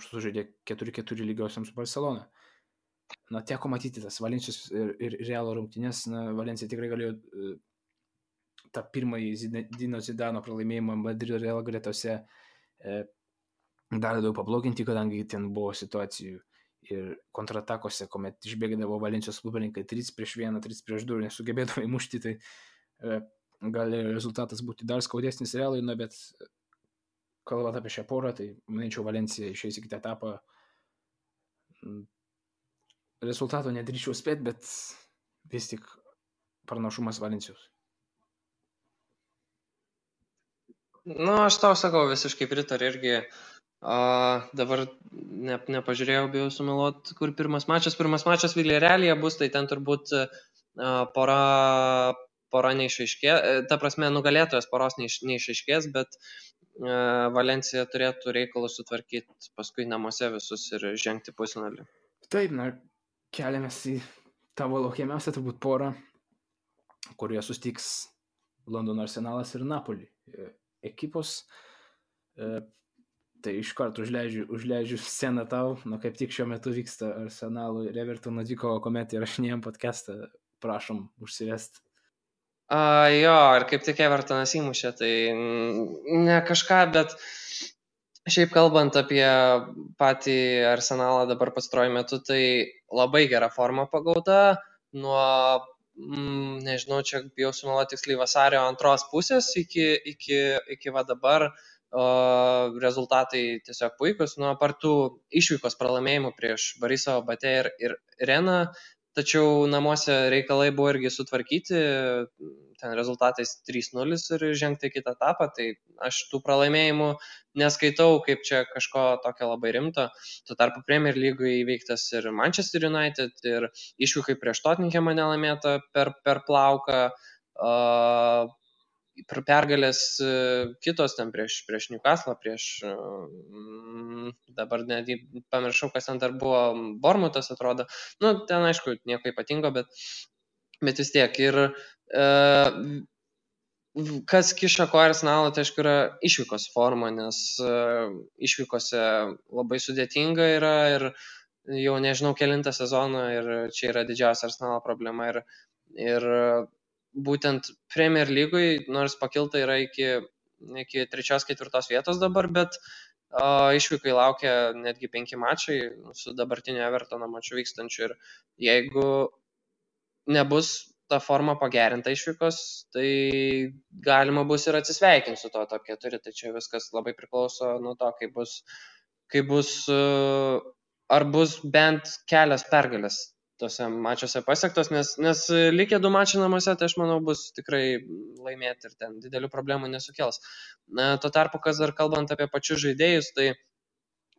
sužaidė 4-4 lygiosiam su Barcelona. Na, teko matyti tas Valencijos ir Realo rungtynės, Valencija tikrai galėjo tą pirmąjį Zinedino Zidano pralaimėjimą Madrido Real gretose dar daug pabloginti, kadangi ten buvo situacijų ir kontratakose, kuomet išbėgdavo Valencijos futbolininkai 3-1, 3-2 ir nesugebėdavo įmušti, tai gali rezultatas būti dar skaudesnis Realui, bet kalbant apie šią porą, tai manyčiau Valencija išeis į kitą etapą. Rezultato nedrįčiau spėti, bet vis tik pranašumas Valencijos. Aš tau sakau, visiškai pritariu irgi. Dabar nepažiūrėjau, bijau sumeluoti, kur pirmas mačas. Pirmas mačas Villarrealyje bus, tai ten turbūt pora neišaiškės, ta prasme nugalėtojas poros neišaiškės, bet Valencija turėtų reikalus sutvarkyti paskui namuose visus ir žengti pusfinalį. Taip, keliamės į tavo laukiamiausią turbūt porą, kurioje sustiks Londono Arsenalas ir Napoli ekipos. Tai iš karto užleidžiu sceną tau, kaip tik šiuo metu vyksta Arsenalo ir Evertono dvikova, kuomet įrašinėjom podcastą, prašom užsivesti. Jo, ir kaip tik Evertonas įmušė, tai ne kažką, bet šiaip kalbant apie patį Arsenalą dabar pastaruoju metu, tai labai gera forma pagauta, nuo, nežinau, čia bijau sumeluoti tiksliai vasario antros pusės iki va dabar. Rezultatai tiesiog puikus, nuo partų išvykos pralaimėjimų prieš Borisovą, Batę ir Reną, tačiau namuose reikalai buvo irgi sutvarkyti, ten rezultatais 3-0 ir žengti į kitą etapą, tai aš tų pralaimėjimų neskaitau kaip čia kažko tokio labai rimto. Tuo tarpu Premier Lygoje įveiktas ir Manchester United, ir išvykai prieš Tottenhamą nelaimėta per plauką, pergalės kitos ten prieš Newcastle, dabar netgi pamiršau, kas ten dar buvo, Bournemouthas atrodo, ten aišku nieko ypatingo, bet vis tiek. Ir kas kiša koją Arsenalo, tai aišku yra išvykos forma, nes išvykose labai sudėtinga yra ir jau nežinau kelintą sezoną ir čia yra didžiausia Arsenalo problema ir būtent Premier Lygoj, nors pakilta yra iki 3-4 vietos dabar, bet išvykai laukia netgi 5 mačai su dabartiniu Evertono maču vykstančiu ir jeigu nebus ta forma pagerinta išvykos, tai galima bus ir atsisveikinti su to top 4, tai čia viskas labai priklauso nuo to, kaip bus, ar bus bent kelias pergalės tose mačiuose pasiektos, nes likę 2 mačiai namuose, tai aš manau bus tikrai laimėti ir ten didelių problemų nesukels. Tuo tarpu, kas dar kalbant apie pačius žaidėjus, tai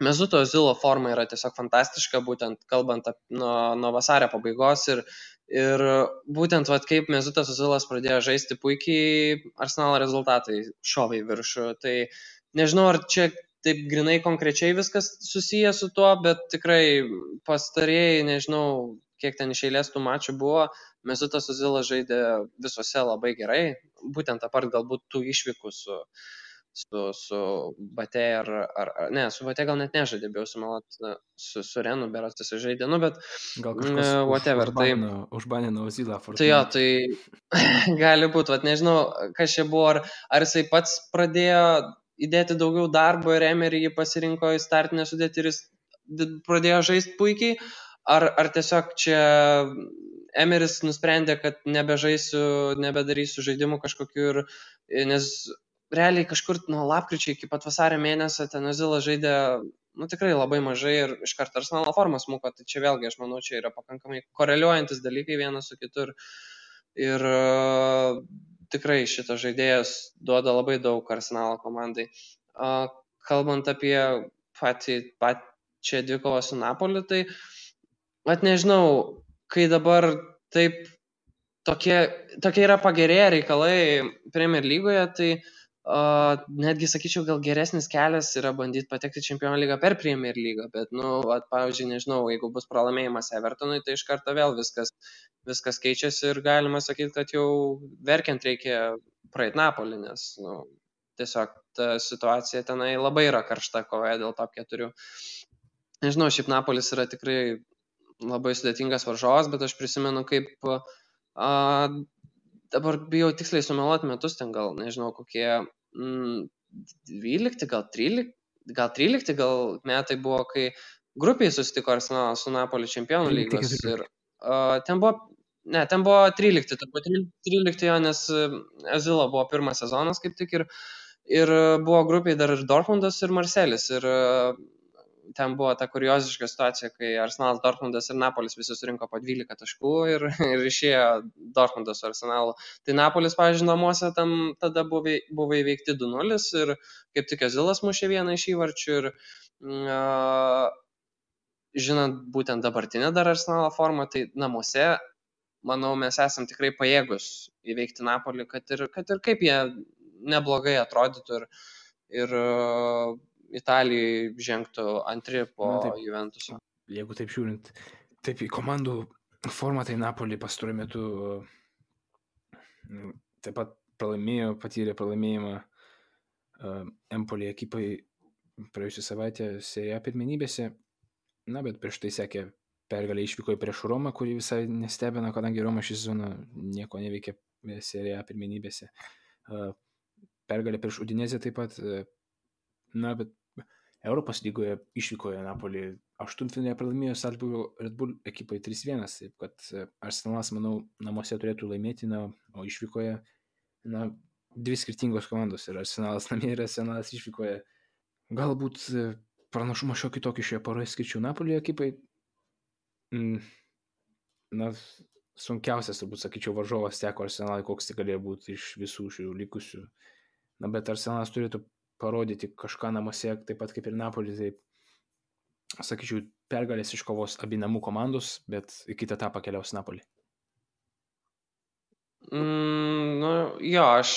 Mesuto Ozilo forma yra tiesiog fantastiška, būtent kalbant nuo vasario pabaigos ir būtent kaip Mesutas Ozilas pradėjo žaisti puikiai, Arsenalo rezultatai šovė į viršų. Tai nežinau, ar čia taip grinai konkrečiai viskas susiję su tuo, bet tikrai pastarėjai, nežinau, kiek ten iš eilės tų mačų buvo, Mesutas Ozilas žaidė visose labai gerai, būtent apart galbūt tų išvykų su Batė ne, su Batė gal net nežaidė, bijau sumeluoti, su Renu berods jis žaidė, bet gal kažkas whatever, užbanino Ozilą. Tai jo, tai gali būti, nežinau, kas čia buvo, ar jisai pats pradėjo įdėti daugiau darbo ir Emery jį pasirinko į startinę sudėtį ir jis pradėjo žaisti puikiai, ar tiesiog čia Emeris nusprendė, kad nebedarysiu žaidimų kažkokių, nes realiai kažkur nuo lapkričio iki pat vasario mėnesio ten Ozilas žaidė tikrai labai mažai ir iš karto Arsenalo forma smuko, tai čia vėlgi aš manau, čia yra pakankamai koreliuojantis dalykai vienas su kitu ir tikrai šitas žaidėjas duoda labai daug Arsenalo komandai. Kalbant apie pačią dvikovą su Napoliu, tai nežinau, kai dabar taip tokie yra pagerėję reikalai Premier Lygoje, tai netgi sakyčiau, gal geresnis kelias yra bandyti patekti Čempionų lygą per Premier lygą, bet, pavyzdžiui, nežinau, jeigu bus pralaimėjimas Evertonui, tai iš karto vėl viskas keičiasi ir galima sakyti, kad jau verkiant reikia praeit Napolį, nes, tiesiog ta situacija tenai labai yra karšta kovoje dėl top 4. Nežinau, šiaip Napolis yra tikrai labai sudėtingas varžovas, bet aš prisimenu, kaip dabar bijau tiksliai sumeluoti metus, ten gal, nežinau, kokie 12, gal 13 metai buvo, kai grupiai susitiko Arsenalas su Napoli Čempionų lygos ir ten buvo 13, turbūt 13 jo, nes Azilo buvo pirmas sezonas kaip tik ir buvo grupiai dar ir Dortmundas ir Marselis ir ten buvo ta kurioziška situacija, kai Arsenalas, Dortmundas ir Napolis visi surinko po 12 taškų ir išėjo Dortmundas su Arsenalu. Tai Napolis, pavyzdžiui, namuose tam tada buvo įveikti 2-0 ir kaip tik Azilas mušė vieną iš įvarčių ir žinant būtent dabartinę dar Arsenalo formą, tai namuose, manau, mes esam tikrai pajėgus įveikti Napolį, kad ir kaip jie neblogai atrodytų ir Italijai žengtų antri po Juventuso. Jeigu taip žiūrint, taip į komandų formą, tai Napolį pastaruoju metu taip pat patyrė pralaimėjimą Empoli ekipai praėjusią savaitę Serie A pirmenybėse, bet prieš tai sekė pergalė išvykoje prieš Romą, kuri visai nestebina, kadangi Roma šį sezoną nieko neveikė Serie A pirmenybėse. Pergalė prieš Udinezę taip pat, bet Europos lygoje išvykoje Napolį 8-finale pralaimėjo Salzburgo Red Bull ekipai 3-1, taip kad Arsenalas, manau, namuose turėtų laimėti, o išvykoje, dvi skirtingos komandos, ir Arsenalas namie ir Arsenalas išvykoje. Galbūt pranašumą šiokį tokį šioje poroje skirčiau Napolį ekipai. Sunkiausias, turbūt sakyčiau, varžovas teko Arsenalui, koks tai galėjo būti iš visų šių likusių. Bet Arsenalas turėtų parodyti kažką namuose, taip pat kaip ir Napolį, tai sakyčiau, pergalės iškovos abi namų komandos, bet į kitą etapą keliaus Napolį. Aš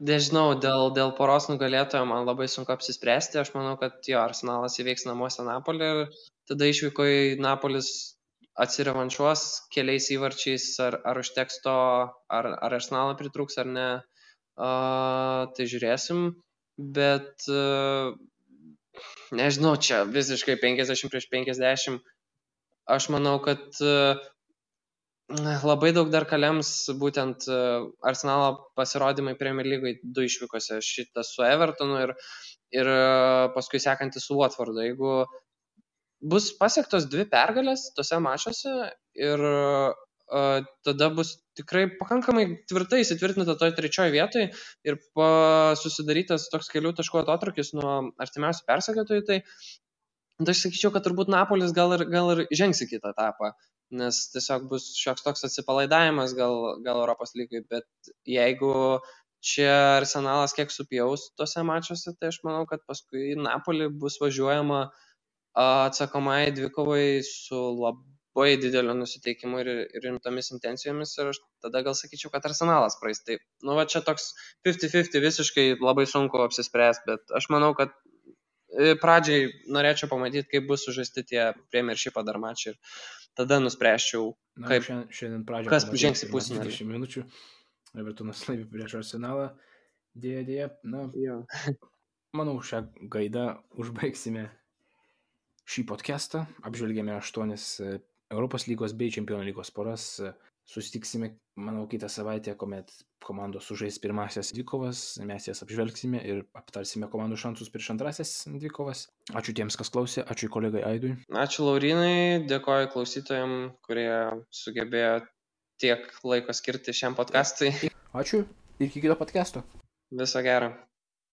nežinau, dėl poros nugalėtojo man labai sunku apsispręsti. Aš manau, kad Arsenalas įveiks namuose Napolį ir tada išvykoje Napolis atsirevanšuos keliais įvarčiais, ar užteks to, ar Arsenalą pritrūks ar ne, tai žiūrėsim. Bet nežinau, čia visiškai 50-50. Aš manau, kad labai daug dar kalems būtent Arsenalo pasirodymai Premier Lygoje 2 išvykose, šitas su Evertonu ir paskui sekantis su Watfordu. Jeigu bus pasiektos 2 pergalės tose mačuose ir tada bus tikrai pakankamai tvirtai įsitvirtinta toj 3 vietoje ir susidarytas toks kelių taškų atotrūkis nuo artimiausių persekiotojų, tai aš sakyčiau, kad turbūt Napolis gal ir žengs į kitą etapą, nes tiesiog bus šioks toks atsipalaidavimas gal Europos lygai, bet jeigu čia Arsenalas kiek supjaus tose mačuose, tai aš manau, kad paskui Napolį bus važiuojama atsakomai dvikovai su labai dideliu nusiteikimu ir rimtomis intencijomis ir aš tada gal sakyčiau, kad Arsenalas praeis. Tai, čia toks 50-50 visiškai labai sunku apsispręsti, bet aš manau, kad pradžiai norėčiau pamatyti, kaip bus sužaisti tie Premiership'o dar mačiai ir tada nuspręsčiau, kas žengs į pusfinalį. 20 minučių, Evertonas laimi prieš Arsenalą, dėja. Manau, šią gaidą užbaigsime šį podcastą, apžvelgėme 8 Europos lygos bei Čempionų lygos poras. Susitiksime, manau, kitą savaitę, kuomet komandos sužais pirmasias dvikovas, mes jas apžvelgsime ir aptarsime komandų šansus prieš antrasias dvikovas. Ačiū tiems, kas klausė, ačiū kolegai Aidui. Ačiū Laurinai, dėkoju klausytojams, kurie sugebėjo tiek laiko skirti šiam podcastui. Ačiū ir iki kito podcasto. Viso gero.